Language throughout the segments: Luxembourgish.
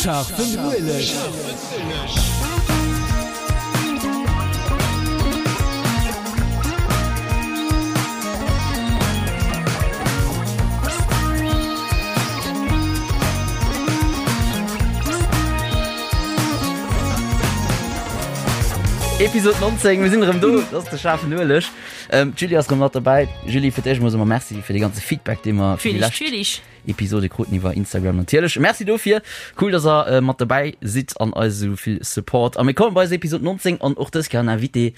Scharfen Ueleg. Episode 19, mir sinn erëm do, dat ass de schaarfen Ueleg. Ähm, D'Julie ass erëm mat dobäi. Julie, fir d'éischt mol soe mer Merci fir de ganze Feedback, dee mer fir déi lescht Episode kruten iwwer Instagram natierlech. Merci dofir. Cool, dass der äh, mat dobäi sidd an eis esou vill Support. A mir kommen bei eis Episode 19 an och dës Kéier en Invité.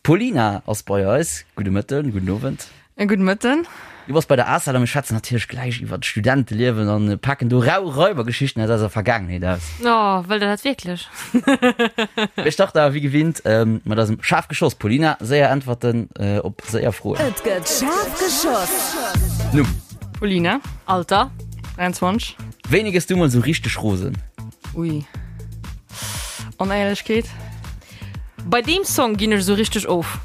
D'Paulina ass bei eis. Gudde Mëtten, gudden Owend. E gudde Mëtten. Du bass bei der ACEL a mir schwätzen natierlech gläich iwwer d'Studenteliewen an paken do rau Raibergeschichten aus eiser Vergaangenheet aus. Oh, wëllt der dat wierklech? Mir starten awer wéi gewinnt mat eisem Schaarf geschoss. Paulina, séier Äntwerten op séier Froen. Et gëtt schaarf geschoss. Numm. Paulina. Alter. 23. Wéini gëss du mol sou richteg rosen? Ui. Onéierlechkeet. Bei deem Song ginn ech sou richteg of.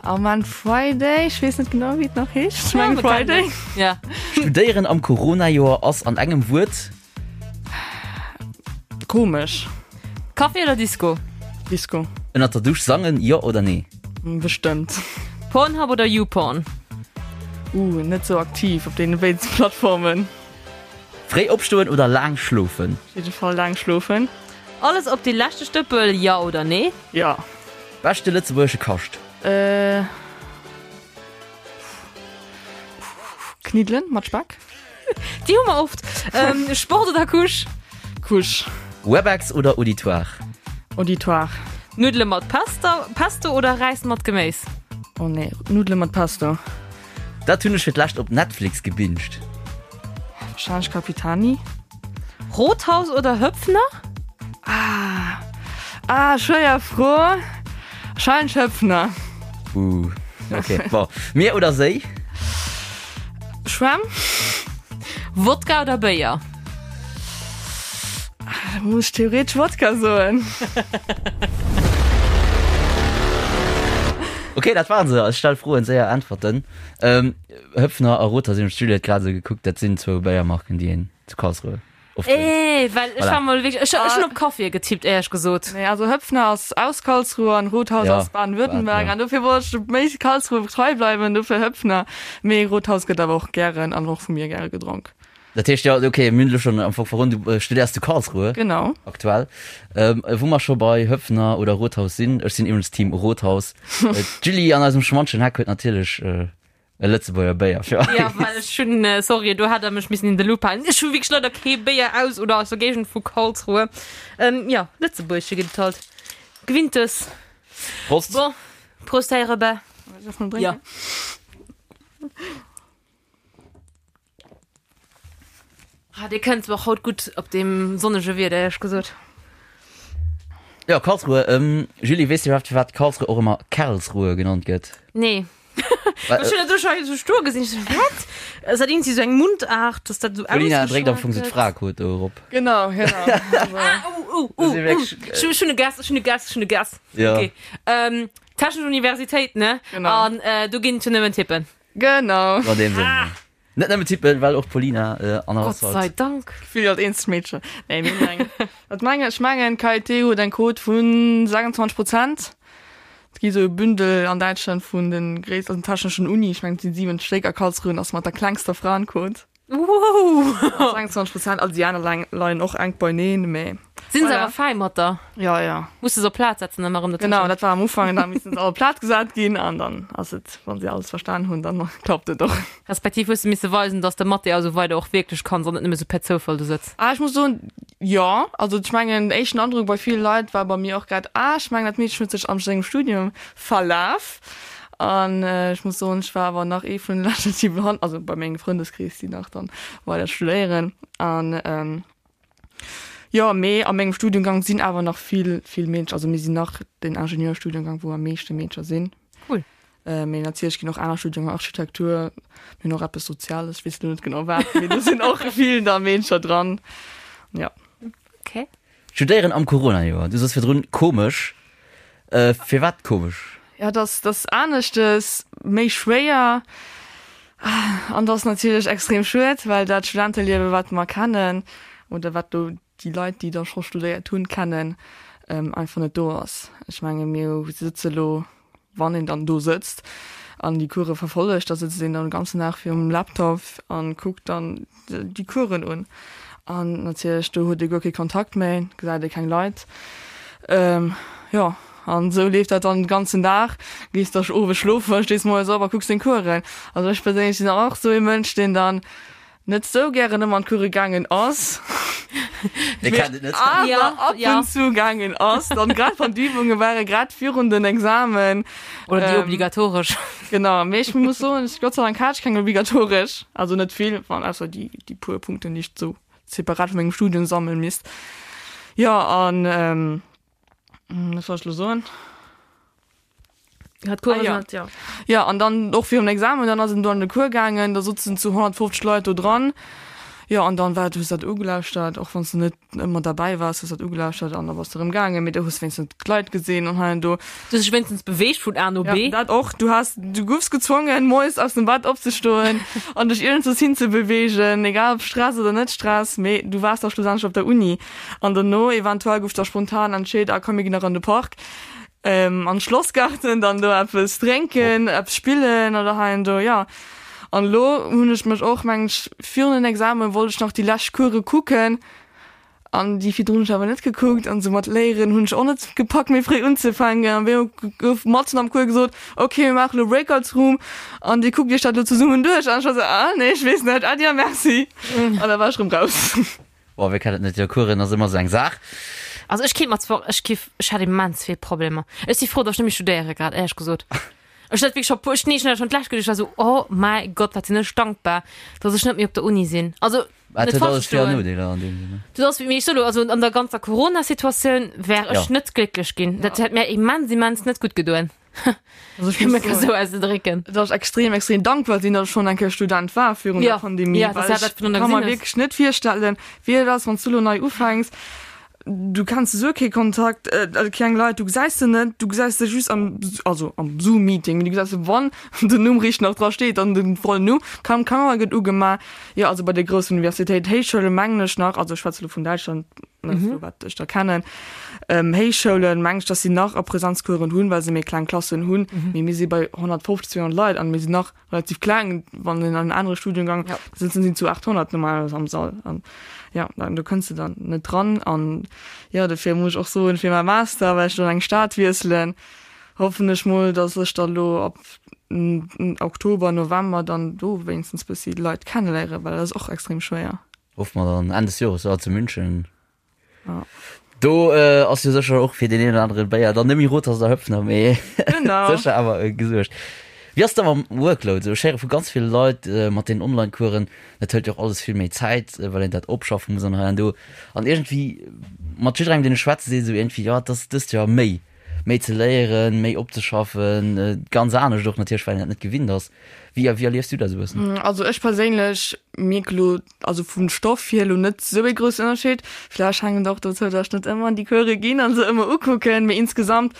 Oh man, Friday, ech weess net genau wéi et nach heescht. Ech mengen Friday. Ja. Studéieren am Corona-Joer ass an engem Wuert? Komesch. Café oder Disco? Disco. Ënnert der Dusch sangen, jo oder nee? Bestëmmt. Pornhub oder YouPorn? Uh, net sou aktiv op deene béiden Plattformen. Fréi opstoen oder laang schlofen? Op jidde Fall laang schlofen. Alles op dee leschte Stëppel, jo oder nee? Jo. Beschte lëtzebuergesche Kascht? Äh. Kniddelen mat Speck. Déi hu mer oft. Sport oder Couche? Couche. Webex oder Auditoire? Auditoire. Nuddele mat Pasta, Pesto oder Räis mat Geméis? Oh nee, Nuddele mat Pesto. Dat hunn ech fir d'lescht op Netflix gebinged. Wahrscheinlech Capitani. Rothaus oder Höpfner? Ah, ah, schwéier Fro. Wahrscheinlech Höpfner. Uh, okay, bon. Mier oder Séi? Schwämm. Wodka oder Béier? Da muss ech theoretesch Wodka soen. Okay, dat waren se. Ech stelle Froen, séier Äntwerten. Ähm, Höpfner a Rothaus, hunn ech d'Juliette grad esou gekuckt, dat sinn zwou Béiermarken, déi een zu Karlsruhe oft drénkt. Eh, well ech Voilà. war mol wierklech, ech, ech hunn op Kaffie getippt, éierlech gesot. Nee, also Höpfner ass aus Karlsruhe an Rothaus Ja, ass Baden-Württemberg ja. an dofir wollt ech méi Karlsruhe trei bleiwen, dofir Höpfner. Mee Rothaus gëtt awer och gären an och vu mir gäre gedronk. Dat heescht, jo, okay, mir hunn elo schonn am Fong verroden, du studéiers zu Karlsruhe. Genau. Aktuell. Ähm, wou mer scho bei Höpfner oder Rothaus sinn, ech sinn iwwregens Team Rothaus. D'Julie an eisem schmantschen Heck huet natierlech e Lëtzebuerger Béier fir eis. Ja, well ech hunn, sorry, do hätt der mech missen in de Loop halen. Ech hu wierklech leider kee Béier aus oder aus der Géigend vu Karlsruhe. Ähm, jo, Lëtzebuergesche gëtt et halt. Gewinntes. Prost. Bon, Prost, Här Robert. Ja. Ah, Dir kënnt och haut gutt op deem sonnege Wieder, éierlech gesot. Jo, Karlsruhe. Ähm, Julie, weess du iwwerhaapt, firwat Karlsruhe och ëmmer Kerlsruhe genannt gëtt? Nee. Well, Ech hunn dat do scho esou stoe gesinn. Ech sou, wat? Ass dat iergendwéi sou eng Mundart, dass dat esou Paulina dréckt am ausgeschwat Fong sou gëtt? d'Fraequot do erop. Genau, genau. Also, Ah, oh, oh, Das oh, si oh. wierklech, Ech hu- ech hunn e Guess, ech hunn e Guess, ech hunn e Guess. Ja. Okay. Ähm, Technesch Universitéit, ne? Genau. An äh, do ginn et jo nëmmen Tippen. Genau. An deem Sënn. Ah. Net nëmmen Tippen, well och d'Paulina äh, an Gott sei Dank. Gefill als eenzegt Meedchen. Nee, mir hunn eng. Wat mengen ech? Mengen KIT huet eng Quot vun 26 Prozent. Et gi sou e Bündel an Däitschland vun den gréissten techneschen Uni, ech mengen et sinn 7 Stéck a Karlsruhe ass mat der klengster Fraenquot. Wow! 26 Prozent, also déi aner leien och enk beineen, mee. Sinn se awer fäi mat der? Ja, ja. Muss de se op Plaz setzen ëmmer erëm Genau, dat war am Ufank, da missen se all op Plaz gesat ginn an dann ass et, wann se alles verstan hunn, dann klappt et och. Respektiv hues de misse weisen, dass de Mathé a sou weider och wierklech kanns an net nëmme sou per Zoufall do sëtz. Ah, ech muss soen, jo. Also ech mengen, den éischten Androck bei ville Leit war bei mir och grad, ah, ech mengen dat Meedchen huet sech am sengem Studium verlaf. An ech muss soen, ech war awer nach ee vun de leschten, déi behan, also bei mengem Frëndeskrees, déi nach dann weider studéieren. An jo, mee a mengem Studiengang sinn awer nach vill, vill Meedercher, also mir sinn nach den Ingenieurstudiengang, wou am meeschte Meedercher sinn. Cool. Mee natierlech ginn och aner Studiengäng, Architektur, mir hunn och eppes Soziales, ech weess elo net genau wat, mee do sinn och vill da Meedercher dran, jo. Okay. Studéieren am Corona-Joer, du soos virdrun komesch. Firwat komesch? Jo, et ass, et ass aneschtes, méi schwéier an et ass natierlech extrem schued, well dat Studenteliewe wat mer kennen. oder wat do déi Leit, déi da scho studéiert hunn, kennen, einfach net do ass. Ech menge mir sëtze lo, wann een dann do sëtzt an déi Course verfollegt, da sëtzt een dann de ganzen Dag virum Laptop a kuckt dann déi Coursen un. An natierlech do huet ee guer kee Kontakt méi, gesäit ee keng Leit. Jo, an esou leeft dat dann de ganzen Dag. Gees da owes schlofen, stees moies op a kucks deng Coursen. Also ech perséinlech sinn och esou ee Mënsch, deen dann net sou gären ëmmer an d'Course gaangen ass, Mir kennen et net. awer Ja, ab ja. und zu gaangen ass, dann grad wann d'Übunge ware grad virun den Examen. Oder déi Ähm, obligatoresch. Genau, mee ech muss soen, ech, Gott sei Dank hat ech keng obligatoresch, also net vill, wann ausser déi, déi puer Punkten, déi ech sou separat vu mengem Studium sammeln misst. Jo, an ähm, wat soll ech lo soen? Hat Cours Ah, ja. hat, ja. Ja, an dann och virum Examen, dann ass en do an de Cours gaangen, da sotzen zu 150 Leit do dran. Jo, an dann war, du hues dat ugelauschtert, och wann s du net ëmmer derbäi waars, hues dat ugelauschtert an da bass du erëm gaangen, mee du hues wéinstens d'Leit gesinn an hei an do. Du hues dech wéinstens beweegt vun A no Ja, B. dat och. Du has, du goufs gezwongen, moies aus dem Bett opzestoen an dech iergendwous hinzebeweegen, egal ob Stress oder net Stress, mee du waars da schlussendlech op der Uni. An dono eventuell gouf da spontan entscheet, ah komm, mir ginn nach an de Park. Ähm, an Schlossgarten, dann do eppes drénken, eppes spillen oder hei an do, ja. An elo hunn ech mech och, mengen ech, virun den Examen wollt ech nach déi lescht Course kucken an déi virdrun hunn ech awer net gekuckt an sou mat Léieren hunn ech och net gepackt méi fréi unzefänken an wéi gouf matzen am Cours gesot, ok mir maache lo Breakouts-Room an dir kuckt iech dat lo zesummen duerch an ech war sou, ah nee ech weess net, Äddi a Merci an da war ech rëm raus. Boah, wee kennt et net, jo Coursen ass ëmmer sou eng Saach. Also ech kéint mer zwar, ech giff, ech hätt immens vill Problemer. Ech si frou, datt ech net méi studéiere grad, éierlech gesot. Ech hat wierklech scho puer, ech, nee, ech hunn dat schonn d'lescht geduecht, ech war sou, oh mäi Gott, wat sinn ech dankbar, datt ech net méi op der Uni sinn. Also, Wat net huet falsch alles Vir an verstoen. Nodeeler an deem Sënn, ne? Du ass, mee ech soe lo, also an der ganzer Corona-Situatioun wär ech Ja. net glécklech ginn. Dat hätt mär immens, immens net gutt gedoen. Also ech Fir muss mech esou soen, auszedrécken. dass ech extrem, extrem dankbar sinn, dass ech schonn eng Kéier Student war virun Ja, der Pandemie, ja, dass well du ech dat vun der ka mer gesinn hues. wierklech net virstellen, wéi et ass, wann s du elo nei ufänks. Du kenns esou kee Kontakt, also keng Leit, du gesäis se net, du gesäis se just am, also am Zoom-Meeting, du gesäis se, wann den Numm richteg nach dra steet an den vollen Numm, kaum Kamera gëtt ugemaach. Jo, also bei de groussen Universitéiten, Héichschoule mengen ech nach, also ech schwätze elo vun Däitschland, net mhm. wat ech da kennen ähm, Héichschoulen meng ech, dass si nach a Präsenzkuren hunn, well se méi kleng Klassen hunn. Mhm. Mee mir si bei 150 200 Leit an mir sinn nach relativ kleng, wann en an anere Studiengang ja. sitzen sinn zu 800 normalerweise am Sall an ja dann du kënns du dann net dran an ja dofir muss ich och soen fir mein Master well ich dann eng Stad wiesselen hoffen ech mol dass ech da lo ab Oktober November dann do wéinstens bëssi Leit kennenléieren, well dat ass och extrem schwéier. Hoffe mer dann Enn des Jores, jo, zu München. Ja. Do äh, ass jo sécher och fir den een oder anere Béier dann net méi Rothaus oder Höpfner, mee Genau. sécher awer äh, gesuergt. Wéi ass da mam Workload? Sou, ech héiere vu ganz ville Leit äh, mat den Online-Coursen, dat hëlt jo och alles vill méi Zäit, äh, well een dat opschaffe muss an hei an do. An iergendwéi mat jidderengem, deen ech schwätze, seet esou iergendwéi, jo, et ass dëst Joer méi, méi ze léieren, méi opzeschaffen, äh, ganz anescht och natierlech, well een dat net gewinnt ass. Wéi, wéi erliefs du dat esou e bëssen? Also ech perséinlech mierk elo, also vum Stoff hier elo net esou ee groussen Ënnerscheed. Vläicht hänkt et och dozou, datt ech net ëmmer an déi Course ginn an se ëmmer ukucken, mee insgesamt,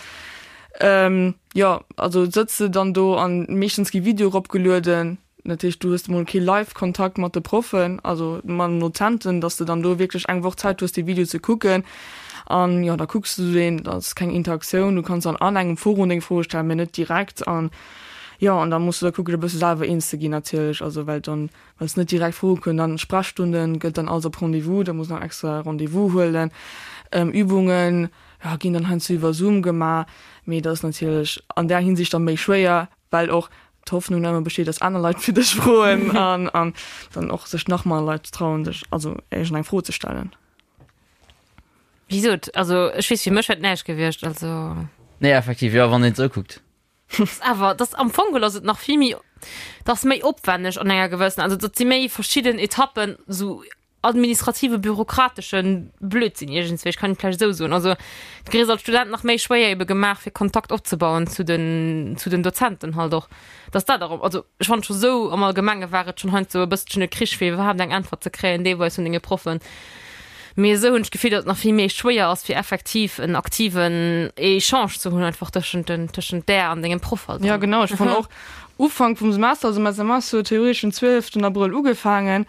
jo, also sëtz de dann do an meeschtens gi Videoe ropgelueden. Dat heescht, du hues emol kee Live-Kontakt mat de Proffen, also mat den Dozenten, datt s de dann do wierklech eng Woch Zäit hues, dee Video ze kucken. An jo, da kucks du deen, da ass keng Interaktioun, du kanns dann an engem Forum deng Froe stellen, mee net direkt. An Jo, an da muss du da kucken, e bësse selwer eens ze ginn natierlech, also well dann, well s net direkt froe kënn. Dann Sprechstunden gëtt dann alles op Rendez-vous, da muss nach extra Rendez-vous huelen. Übungen, jo, ginn dann heiansdo iwwer Zoom gemaach, mee dat ass natierlech an där Hinsicht dann méi schwéier, well och d'Hoffnung ëmmer besteet, dass aner Leit fir dech froen an an dann och sech nach manner Leit trauen, sech also iergendeng Fro ze stellen. Wéi gesot, also ech weess, fir mech wär et näischt gewiescht, also. Nee, effektiv, jo, wann een et esou kuckt. Awer dass am Fong geholl ass et nach vill méi, dat ass méi opwänneg an enger gewëssen, also dat si méi verschidden Etappen, esou administrative bürokratesche Blödsinn iergendswéi, ech kann et vläicht esou soen. Also du kriss als Student nach méi schwéier ebe gemaach fir Kontakt opzebauen zu den, zu den Dozenten halt och. Dass dat erëm, also ech fannen scho sou am Allgemenge war et schonn heiansdo e bësselchen e Krich fir iwwerhaapt eng Äntwert ze kréien deelweis vun denge Proffen. Mee esou hunn ech d'Gefill, datt et nach vill méi schwéier ass, fir effektiv en aktiven Echange ze hunn einfach tëschent den, tëschent där an dengem Proff halt. Ja genau, ech fannen och Ufank vum Semester, also mäi Semester huet theoretesch den 12 Abrëll ugefaangen.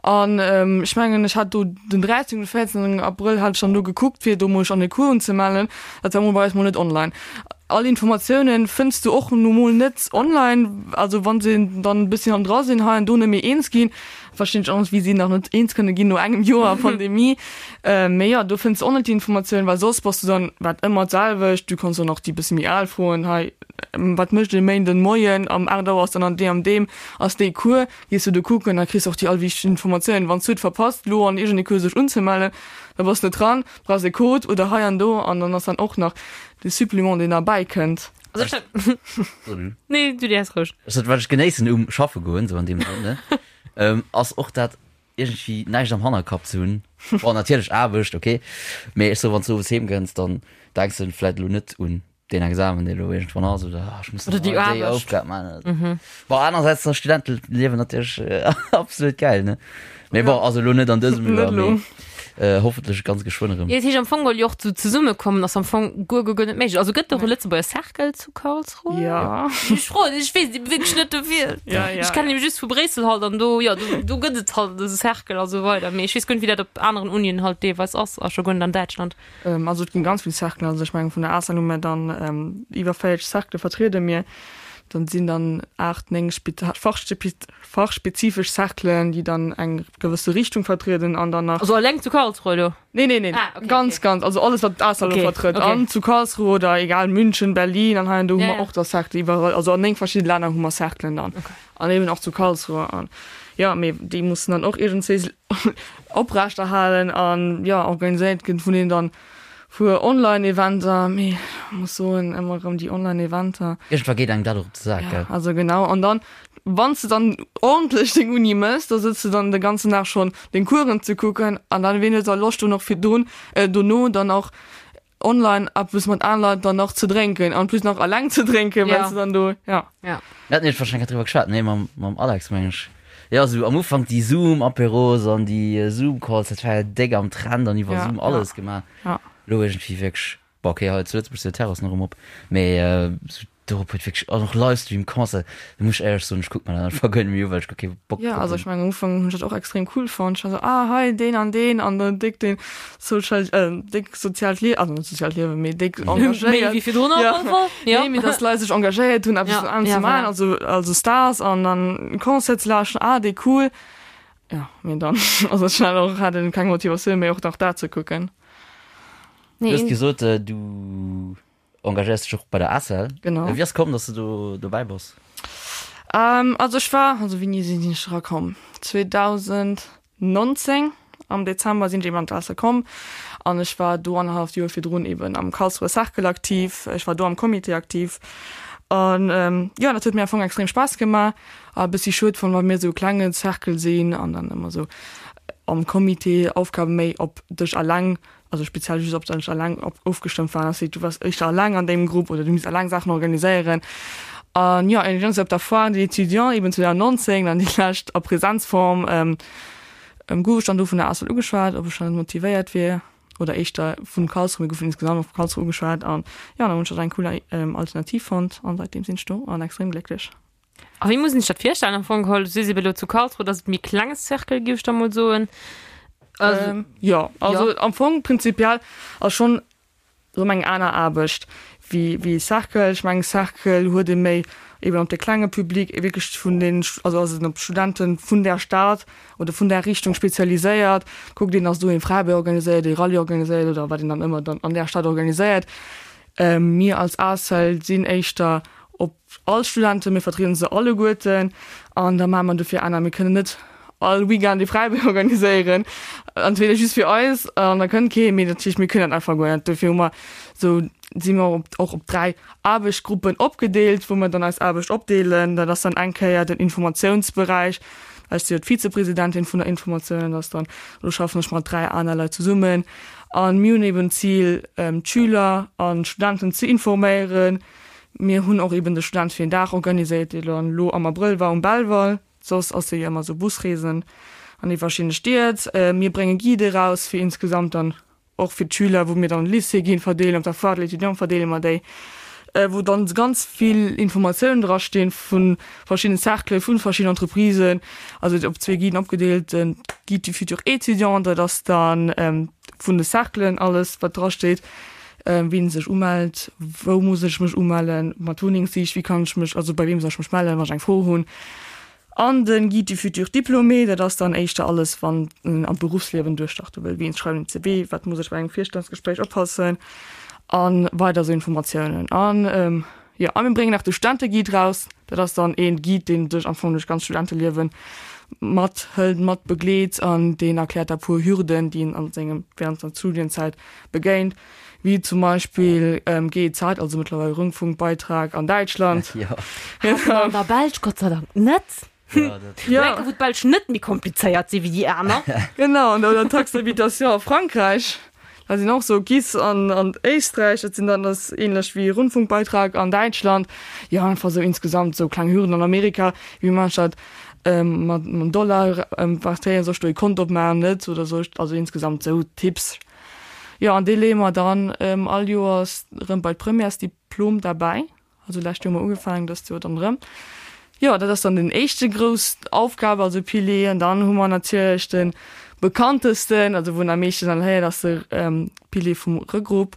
An ech mengen, ech hat do den 13 oder 14 Abrëll hat ech dann do gekuckt, fir do mol mech an de Cours unzemellen. Dat war mol bei eis mol net online. All Informatiounen fënns du och nu mol net online. Also wann se dann e bësschen am dra sinn, hei an do net méi eens ginn, verstinn ech och net, wéi si nach net eens kënne ginn no engem Joer Pandemie. Mee jo, do fënns du och net déi Informatiounen, well soss bass du dann, wat ëmmer d'selwecht, du kanns dann och déi bësse méi al froen, hei wat mécht e Méinden Moien am 8 Auer ass dann an deem an deem ass dee Cours. Gees du do kucken, da kriss de och déi all wichteg Informatiounen. Wann s du et verpasst, lo an iergendee Cours sech unzemellen, da bass de net dran, brauchs e Code oder hei an do an dann ass dann och nach de Supplément, deen derbäi kënnt. Also ech Nee, du däers roueg. Also wat ech genéissen um schaffe goen, sou an deem Sënn, ne, ass och dat iergendwéi näischt am Hannerkapp ze hunn. Bon, natierlech Aarbecht, okay, mee ech soe wann s du owes heem kënns, dann denks de vläit elo net un deen Examen, dee elo iergendwann ass, oder ah, ech muss Oder déi nach déi Aarbecht. Aufgab maachen. Bon, anerersäits ass Studenteliewen natierlech absolut gäil, ne? Mee bon, also elo net an dësem Net Joer, elo. mee äh, hoffentlech ganz geschwënn erëm. Jo, dat heescht am Fong geholl jo och zu zesummekommen ass am Fong guer guer guer net méiglech. Also gëtt et och e Lëtzebuerger Cercle zu Karlsruhe? Ja. Ech froen, ech weess et wierklech net dofir. Ja, ja, Ech kennen ja. nämlech just vu Bréissel halt an do, jo, do, do gëtt et halt esou Cercle a sou weider. Mee ech weess guer net, wéi dat op aneren Unien halt deelweis ass a scho guer net an Däitschland. Also et ginn ganz vill Cerclen, also ech mengen vun der ASAN hu mir dann iwwer 40 Cercle vertriede mir. Dann sinn dann 8, 9 fachspezifesch Cerclen, déi dann eng gewësse Richtung vertrieden an dann nach. Also alleng zu Karlsruhe elo? Nee, nee, nee, Ah, okay, ganz, okay. ganz, also alles wat d'ASAN elo Okay, vertrëtt. okay. An zu Karlsruhe oder egal München, Berlin an hei an do hu Ja, mer ja. och da Cercle iwwerall, also an 9 verschidde Länner hu mer Cerclen dann. Okay. An eben och zu Karlsruhe an jo, mee déi mussen dann och iergendswéi oprechterhalen an jo organiséiert ginn vun deenen dann puer Online-Eventer, mee ech muss soen ëmmer erëm déi Online-Eventer. Iergendwa geet engem dat och op de Sak, gell? Also genau an dann wann s de dann ordentlech deng Uni mëss, da sëtz de dann de ganzen Dag schonn deng Coursen ze kucken an dann wien huet da Loscht do nach virdrun dono dann och online eppes mat anere Leit dann nach ze drénken an plus nach alleng ze drénken, well Ja. s de dann do, ja. Ja. Mir haten iech wahrscheinlech driwwer geschwat, nee, mam, mam Alex, meng ech. Jo, sou am Ufank déi Zoom-Apéros an déi Zoom-Calls, dat war jo déck am Trend an iwwer Ja, Zoom ja. alles gemaach. Ja. Elo iergendwéi wierklech, bon, okay, hei zu Lëtzebuerg sinn d'Terrassen erëm op, mee sou Dorop huet wierklech an och Livestream Concert, do muss ech éierlech soen, ech kuck mer dat einfach guer net méi u well ech guer kee Bock Jo, drop also hunn. ech mengen am Ufank hunn ech dat och extrem cool fonnt. Ech war sou, ah hei deen an deen an dann déck deen social, déck soziaalt Lie, also net soziaalt Liewen, mee déck Méi engagéiert. wéi virdrun op Ja. alle Fall, jo. Nee, mee dass d'Leit sech engagéiert hunn eppes Ja, an ja, ze maachen, voilà. also also Stars an dann Concert ze lauschteren, ah déi cool. Jo, mee dann ass et schnell och, hat een keng Motivatioun méi och nach dat ze kucken. Du Nee, hues gesot, du Engagéiers dech och bei der ACEL. Genau. Wéi ass komm, dass du do dobäi bass? Ähm, also ech war, also wéini sinn ech erakomm? 2019 am Dezember sinn ech eben an d'ACEL komm an ech war do annerhalleft Joer virdrun eben am Karlsruher Cercle aktiv. Ech war do am Comité aktiv an ähm, jo, dat huet mir am Fong extrem Spaass gemaach. A bëssi schued fonnt, well mir esou e klenge Cercle sinn an dann ëmmer esou am Comité Aufgabe méi op dech alleng also speziell just op dech alleng op ofgestëmmt waren, ass du wars éischter alleng an deem Grupp oder du misst alleng Saachen organiséieren. An jo, eng op der Foire des Étudiants eben 2019, dann déi lescht a Präsenzform, ähm, gouf ech dann do vun der ACEL ugeschwat, ob ech dann net motivéiert wier oder éischter vun Karlsruhe, mir goufen insgesamt och vu Karlsruhe ugeschwat an jo, dann hunn ech dat eng cool Alternativ fonnt an seitdeem sinn ech do an extrem glécklech. A wéi muss een sech dat virstellen am Fong geholl? Du sees ebe lo zu Karlsruhe, dat ass et méi klenge Cercle, géif ech da mol soen. Also, ähm, ja, also ja. am Fong prinzipiell ass schon erëm eng aner Aarbecht wéi wéi Cercle. Ech mengen Cercle huet ee méi eben op de klenge Public wierklech vun den, also ass en op Studenten vun där Stad oder vun där Richtung spezialiséiert. Kuckt een, datt do ee Fräibee organiséiert, ee Rallye organiséiert oder wat een dann ëmmer dann an där Stad organiséiert. Ähm, mir als ACEL sinn éischter op all Studenten, mir vertrieden se alleguerten an da maache mer dofir aner. Mir kënnen net all Weekend ee Fräibee organiséieren, entweder just fir eis an da kënnt kee, mee dat heescht mir kënnen dat einfach guer net. Dofir hu mer esou, si mer op och op 3 Aarbechtsgruppen opgedeelt, wou mer dann eis Aarbecht opdeelen. Dat ass dann eng Kéier den Informatiounsberäich, ech si jo d'Vizepresidentin vun der Informatioun, dat ass dann, do schaffen ech mat 3 aner Leit zesummen a mir hunn eben d'Zil d'Schüler an d'Studenten ze informéieren, Mir hunn och eben de Student fir een Dag organiséiert, dee dann elo am Abrëll war um Belval. Soss ass jo ëmmer sou Busreesen an déi verschidde Stied. Mir brénge Guide eraus fir insgesamt dann och fir d'Schüler, wou mir dann Lycée ginn, verdeelen. Op der Foire de l'étudiant verdeele mer déi. wou dann ganz vill Informatiounen dra stinn vu verschiddenen Cerclen, vu verschiddenen Entreprisen, also op zwee Guiden opgedeelt, den Guide du futur étudiant, dat ass dann vun de Cerclen alles wat dra steet, wien sech umellt, wou muss ech mech umellen, mat Wunnengssich, wéi kann ech mech, also bei weem soll ech mech mellen, wann ech eng Fro hunn. An den Guide du futur diplômé, dat ass dann éischter alles wann en an d'Beruffsliewen duerchstarte wëll, wéi schreiwen en CV, wat muss ech bei engem Virstellungsgespréich oppassen a weider esou Informatiounen. An jo, a mir bréngen nach de Studenteguide raus, dat ass dann een Guide, deen dech am Fong duerch d'ganz Studenteliewen mathëlt, mat begleet an deen erkläert der puer Hürden, déi een an sengem während der Studienzäit begéint, wéi zum Beispill GEZ, also mëttlerweil Rundfunkbeitrag an Däitschland. Jo. Hat mer an der Belsch Gott sei Dank net. Ja, dat. Ja. Enke wou d'Belsch net méi komplizéiert si wéi déi aner. Genau, an oder Taxe d'habitation a Frankräich. Da sinn och sou GIS an an Éisträich, dat sinn dann ass ähnlech wéi Rundfunkbeitrag an Däitschland. Jo, einfach sou insgesamt sou kleng Hürden an Amerika, wéi man dat mat mam Dollar partéieren, soll ech do ee Kont opmaachen, net oder soll ech, also insgesamt sou Tipps. Jo, an dee leeë mer dann all Joers erëm bei d'Premièresdiplom derbäi. Also lescht Joer hu mer ugefaangen, dëst Joer dann erëm. Jo, dat ass dann den éischte grouss Aufgab, also Pilier. An dann hu mer natierlech de bekanntesten, also wou een am meeschten dann héiert, ass de Pilier vum Regrupp,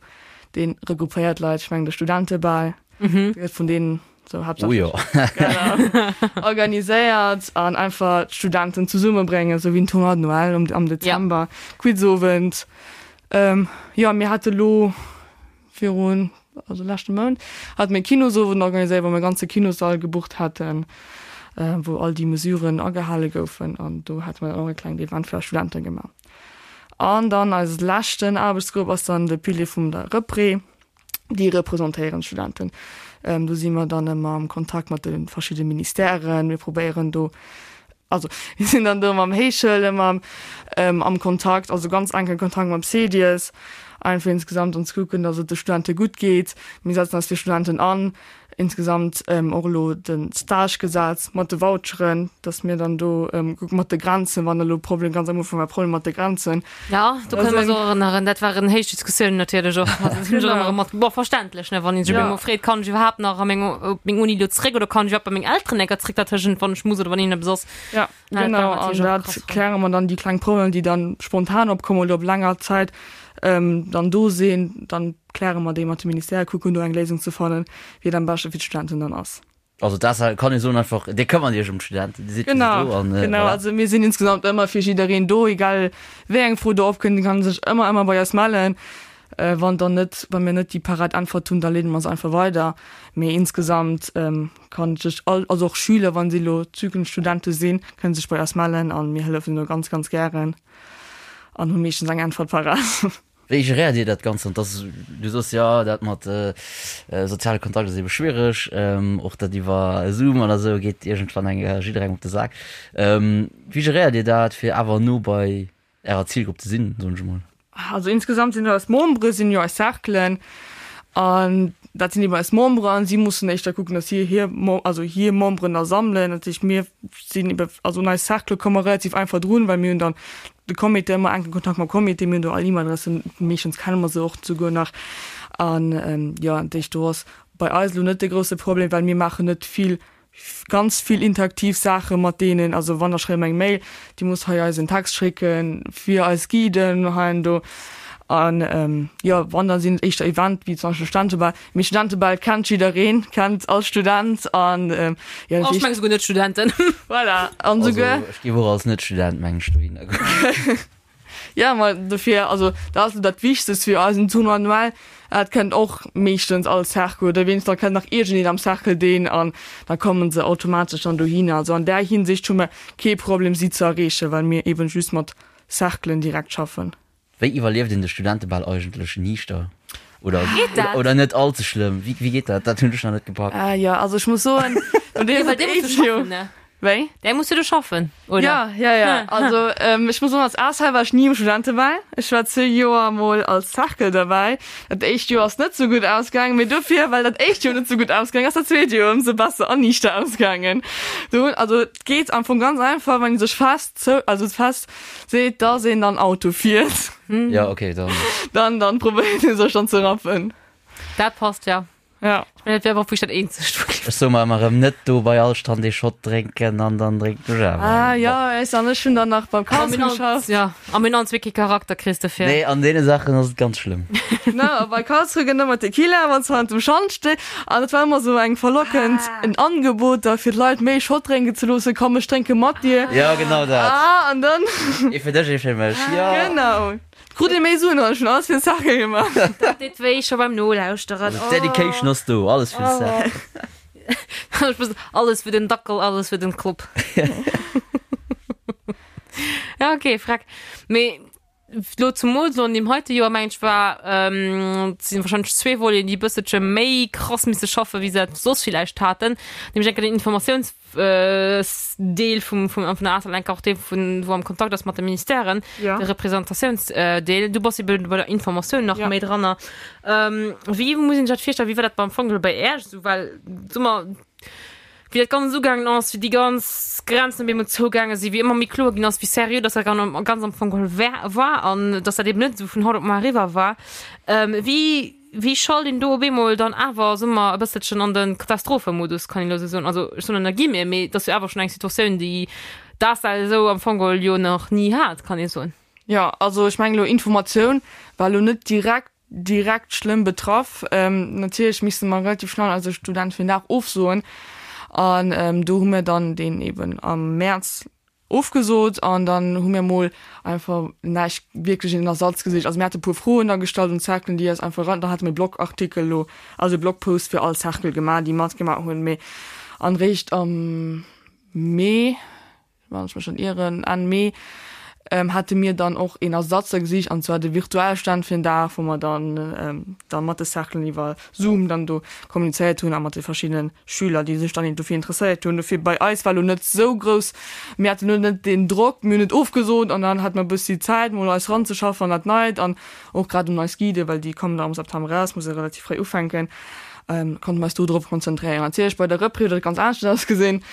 dee regroupéiert Leit, ech mengen de Studentebal, dee gëtt vun deenen sou haaptsächlech Oh jo. genau, organiséiert an einfach d'Studenten zesummebréngen, sou wéi en Tournoi de Noël am, am Dezember, Quizowend. Jo, mir hate lo virun, also leschte Mount, hate mir e Kinosowend organiséiert, wou mir e ganze Kinossall gebucht haten, wou all déi Mesuren agehale goufen an do hate mir dann och e klengt Event fir eis Studente gemaach. An dann eise leschten Aarbechtsgrupp ass dann de Pilier vum der Repré. Déi representéieren d'Studenten. Do si mer dann ëmmer am Kontakt mat de verschiddene Ministèren. Mir probéieren do, also mir sinn dann do mam Héichschoul ëmmer am Kontakt, also ganz enke Kontakt mam CEDIES, einfach insgesamt an ze kucken, datt et de Studente gutt geet. Mir setzen eis fir Studenten an. Insgesamt och elo de Stagegesetz mat de Voucheren, datt mir dann do kucke mat de Grenzen, wann elo Problem, ganz am Ufank war Problem mat de Grenzen. Ja, do kënne mer eis och erënneren, dat waren héich Diskussiounen natierlech och. Also dat hunn ech och ëmmer erëm mat, bon, verständlech, ne, wann een sech op eemol freet, kann ech iwwerhaapt nach a meng, op meng Uni elo zréck oder kann ech iwwerhaapt bei meng Elteren enker zréck dertëschent, wann ech muss oder wann iergendeppes ass. Ja, genau, an dat kläre mer dann, déi kleng Problemer, déi dann spontan opkommen oder op länger Zäit dann do sinn, dann kläre mer déi mat de Ministèrë, kucken do eng Léisung ze fannen, wéi et am beschte fir d'Studenten dann ass. Also dat kann ee soen einfach, Dir këmmert Iech ëm d'Studenten, Dir sidd fir si do an voilà. Genau, also mir sinn insgesamt ëmmer fir jiddereen do, egal wéi eng Fro do opkënnt, kann sech ëmmer, ëmmer bei eis mellen. Wann dann net, wa mir net déi parat Äntwert hunn, da leede mer se einfach weider. Mee insgesamt kann sech all, also och Schüler, wa si elo zukünfteg Studente sinn, kënne sech bei eis mellen a mir hëllefen do ganz, ganz gären an hu meeschtens eng Äntwert parat. Wéi geréiert Dir dat Ganzt? An dass du soss, jo, dat mat soziale Kontakt ass ebe schwiereg, och dat iwwer Zoom oder esou geet iergendwann eng jidderengem op de Sak. Wéi geréiert Dir dat, fir awer no bei Ärer Zilgrupp ze sinn, soen ech emol? Also insgesamt sinn eis Membere sinn jo eis Cerclen an dat sinn eben eis Membere an si mussen éischter kucken, datt si hir also hir Memberen da sammelen. Dat heescht mir sinn ebe also un eis Cercle komme mer relativ einfach drun, well mir hunn dann de Comité ëmmer enke Kontakt mam Comité, mir hunn do all E-Mail-Adressen, meeschtens kenne mer se och souguer nach an jo dat heescht do ass bei eis elo net de grousse Problem, well mir maachen net vill ganz vill interaktiv Saache mat deenen, also wann da schreiwe mer eng Mail, Dir musst hei eis en Text schécke fir eis Guiden hei an do. An jo, wann da sinn et éischter Event wéi zum Beispill Studentebal. Mee Studentebal kennt jiddereen, kennt all Student an jo dat heescht. Ech menge souguer Net-Studenten. Voilà, an souguer. Also ech géif och als Net-Student meng ech dohinner goen. Ja, ma dofir, also dat ass dat Wichtegst fir eis en Tournoi annuel. Dat kennt och meeschtens all Cercle oder wéinstens da kennt nach iergendeen am Cercle deen an da kommen se automatesch dann dohinner. Also an där Hinsicht hu mer kee Problem si ze erreechen, well mir eben just mat Cerclen direkt schaffen. Wéi iwwerlieft een de Studentebal eigentlech niichter oder Geet dat? oder net all ze schlëmm? Wéi wéi geet dat? Dat hunn ech nach net gepackt. Ah jo, also ech muss soen, no deem Well dee muss jo schaffen, ne? Wéi? Däi muss jo do schaffen, oder? Ja, ja, ja. Also ähm, ech muss soen, als ASL war ech ni um Studentebal. Ech war zwee Joer mol als Cercle derbäi. Dat éischt Joer ass net sou gutt ausgaangen, mee dofir, well dat éischt Joer net sou gutt ausgaangen ass, dat zweet Joer ëmsou besser an niichter ausgaangen. Do hunn, also et geet am Fong ganz einfach, wann ee sech fest zou, also fest seet, dass een dann Auto fiert. Ja, okay, dann. Dann, dann probéiert ee sech dann ze rappen. Dat passt, ja. Ja. Mä dat wär awer och wierklech dat eenzegt, wou ech. Ech soe mer ëmmer erëm, net do bei all Stand ee Shot drénken an dann drénken ech awer Ah jo, ech an ech hunn dann nach beim Karlsruhe geschafft. Ja, a mir hunn allen zwee kee Charakter, kriss dofir. Nee, an deene Saachen ass et ganz schlëmm. No, a bei Karlsruhe gëtt ëmmer Tequila, wann s du hannert dem Schand stees. An et war ëmmer esou eng verlockend, en Angebot da fir d'Leit méi Shot drénken ze loossen, Komm, ech drénke mat dir. Jo, genau dat. Ah, an dann. Ee fir dech, ee fir mech, jo. Genau. Krut ee méi Suen an ech hunn alles fir den Cercle gemaach. Dat deet wéi scho beim Nolauschteren. Also d'Dedication ass do, alles fir den Cercle. Ech muss, alles fir den Dackel, alles fir den Club. Ja okay, freck. Mee lo zumools lo an deem heite Joer mengen ech war, et sinn wahrscheinlech zwee Voleten déi e bësselche méi krass misse schaffen wéi se dat soss villäicht haten, nämlech enker den Informatiouns Deel vum vum vun der ACEL enker och dee vun wou am Kontakt ass mat de Ministèren, Ja. de Representatiounsdeel. Du bass ebe bei der Informatioun nach Ja. méi dranner. Ähm, wéi muss een sech dat virstellen? Wéi war dat beim Fong bei Äerch esou? Well so mer wéi dat Ganzt ugaangen ass, wéi déi ganz Grenzen op eemol zougaange sinn, wéi ëmmer méi kloer ginn ass, wéi seriö dass dat gan ganz am Fong geholl war war an dass dat eben net esou vun haut op mar eriwwer war. Ähm, wéi Wéi schalt een do op eemol dann awer, soe mer, e bësselchen an de Katastrophemodus, kann een elo esou soen? Also ech soen ënner Guillemeten, mee et ass jo awer schonn eng Situatioun, déi d'ACEL esou am Fong geholl jo nach ni hat, kann ee soen. Jo, also ech mengen elo Informatioun war elo net direkt direkt schlëmm betraff. Natierlech misste mer relativ schnell eise Student fir den Dag ofsoen an do hu mir dann deen eben am Mäerz Ofgesot an dann hu mir mol einfach näischt wierklech een Ersatz gesicht. Also mir hate puer Froen da gestallt un d'Cerclen, déi eis einfach eran, dann hate mir Blogartikel elo, also e Blogpost fir all Cercle gemaach, déi matgemaach hunn. Mee an réischt am Mee, wann ech mech net ieren, Enn Mee, hate mir dann och een Ersatz da gesicht an zwar de virtuelle Stand fir en Dag, wou mer dann da mat de Cerclen iwwer Zoom dann do kommunizéiert hunn a mat de verschiddenen Schüler, déi sech dann dofir interesséiert hunn. Dofir bei eis war lo net sou grouss, mir haten lo net deen Drock, mir hunn et ofgesot an dann hate mer e bëssi Zäit mol eis ranzeschaffen an dat Neit an och grad un eis Guiden, well déi kommen da am September eraus, muss e relativ fréi ufänken, konnte mer eis do drop konzentréieren. Natierlech bei der Repris huet dat ganz anescht ausgesinn,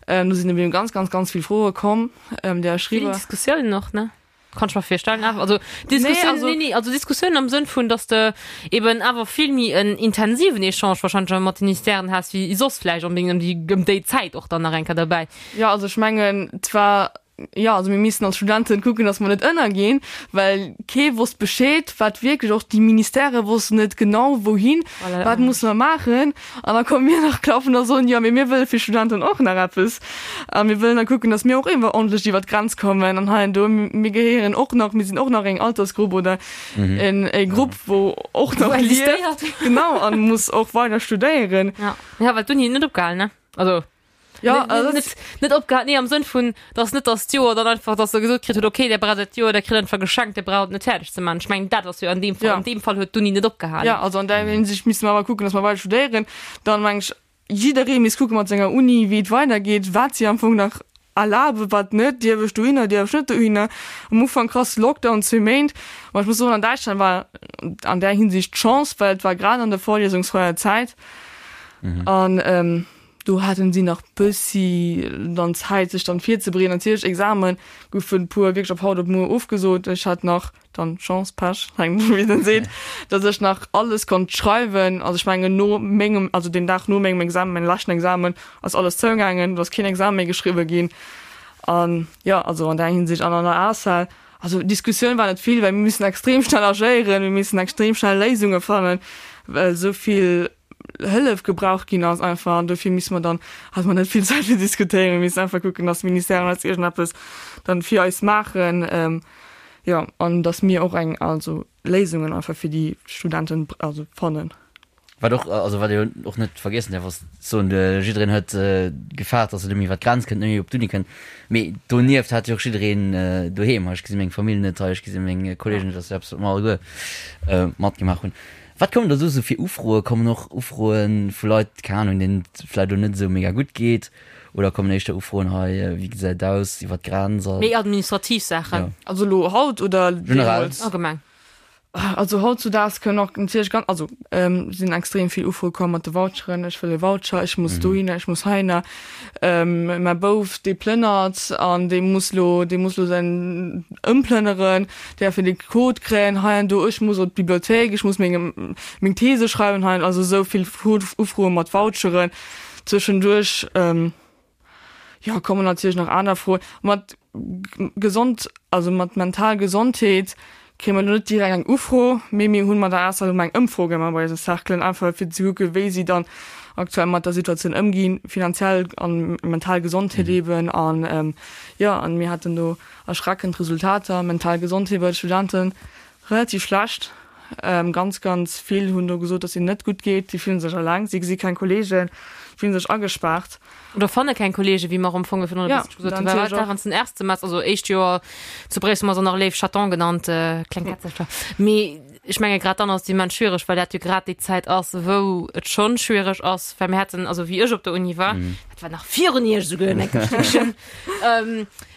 do sinn eben ganz, ganz, ganz vill Froe komm, déi eis Vill schriwwe. Diskussiounen och, ne? Kann ech mer virstellen awer also Diskussioun, Nee, also- nee, nee, also Diskussioun am Sënn vun, dass de eben awer vill méi en intensiven Echange wahrscheinlech mat den Ministèren has wéi soss vläicht onbedéngt ëm déi ëm déi Zäit och dann nach eng Kéier derbäi. Jo, also ech mengen, et war, jo, also mir missten als Studenten kucken, dass mer net ënnerginn, well kee wosst Bescheed, wat wierklech, och déi Ministèrë wossten net genau wouhin, Voilà. wat musse mer maachen. An da komme mir nach klappen a soen, jo, mee mir wëlle fir Studenten och nach eppes. A mir wëllen da kucken, datt mir och iergendwa ordentlech iwwer d'Grenz kommen. An hei an do, mir gehéieren och nach, mir sinn och nach eng Altersgrupp oder en e Grupp, wou och nach Wou lieft. existéiert. Genau, an muss och weider studéieren. Ja, ja well d'Uni huet net opgehalen, ne? Also Ja, net, also net, net opgehalen, nee, am Sënn vun, dass net dass d'Joer dann einfach, dass se gesot kritt huet, okay, där braucht dat Joer, där kritt einfach geschenkt, där braucht et net fäerdeg ze maachen. Ech mengen, dat ass jo an deem Fall, Ja. an deem Fall huet d'Uni net opgehalen. Ja, also an där Hinsicht misste mer awer kucken, dass mer weider studéieren. Dann meng ech, jidderee misst kucke mat senger Uni, wéi et weidergeet, wat si am Fong nach erlaben, wat net, dierf ech dohinner, dierf ech net dohinner. Am Ufank krass Lockdown, zwee Méint. Ma ech muss soen, an Däitschland war an där Hinsicht d'Chance, well et war grad an der vorlesungsfreier Zäit an do haten si nach bëssi dann Zäit, sech dann virzebereeden. Natierlech, Examen goufen e puer wierklech op haut op muer ofgesot. Ech hat nach dann Chance, Pech, hänkt dovun wéi een seet, dass ech nach alles konnt schreiwen. Also ech mengen no mengem, also deen Dag no mengem Examen, mengem leschten Examen, ass alles zougaangen, do ass keen Examen méi geschriwwe ginn. An jo, also an där Hinsicht an an der ACEL, also Diskussioun war net vill, well mir missen extrem schnell agéieren, mir missen extrem schnell Léisunge fannen, well esou vill Hëllef gebraucht ginn ass einfach. An dofir misse mer dann, hate mer net vill Zäit fir diskutéieren, mir missen einfach kucken, dass d'Ministèren eis iergendeppes dann fir eis maachen. Jo, an dass mir och eng, also Léisungen einfach fir déi Studenten, also fannen. Wat och, also wat ee och net vergiessen däerf ass soen, jiddereen huet gefaart, dass en net méi iwwer d'Grenz kënnt, net méi op d'Uni kënnt. Mee donieft hat jo och jiddereen doheem, hei ech gesi meng Famill net, hei ech gesi meng Kolleegen net, dat ass jo eppes wat mer alleguer matgemaach hunn. Wat kommen da sou fir Ufroe? Kommen och Ufroe vu Leit, keng Ahnung, deenen et vläicht elo net esou mega gutt geet? Oder kommen éischter Ufroen hei, wéi gesäit et aus iwwer d'Grenz a. Méi administrativ Saachen. Jo. Also elo haut oder Generell. deemools? Allgemeng. Also hautzudaags kënnen och natierlech ganz, also sinn extrem vill Ufroe komm mat de Voucheren, ech wëll e Voucher, ech muss dohinner, ech muss heihinner, mäi Bouf dee plënnert an dee muss lo, dee muss lo säin ëmplënneren, däerf en de Code kréien hei an do, ech muss op d'Bibliothéik, ech muss meng meng These schreiwen hei an, also esou vill Ufroe mat Voucheren zwëschenduerch. Jo, kommen natierlech nach aner Froen. Mat gesond, also mat mental Gesondheet kréie mer elo net direkt eng Ufro, mee mir hunn mat der ASA elo eng Ëmfro gemaach bei eise Cerclen, einfach fir ze kucken, wéi si dann aktuell mat der Situatioun ëmginn, finanziell an mental Gesondheet eben. An jo, an mir haten do erschreckend Resultater, mental Gesondheet bei de Studenten Relativ schlecht. Ganz, ganz vill hunn do gesot, dass hinnen net gutt geet. Si fillen sech eleng, si gesi keng Kolleegen, fillen sech agespaart. Oder fanne keng Kolleegen, wéi mer am Fong virun e bësselche gesot hunn. Well wat während den Erstsemester, also éischt Joer zu Bréissel, hu mer se nach léif Chaton genannt, kleng Kätzercher. Mee ech menge grad dann ass et immens schwiereg, well dat jo grad déi Zäit ass, wou et schonn schwiereg ass, well mir haten, also wéi ech op der Uni war, dat war nach virun Iech esouguer en enke Stéckchen,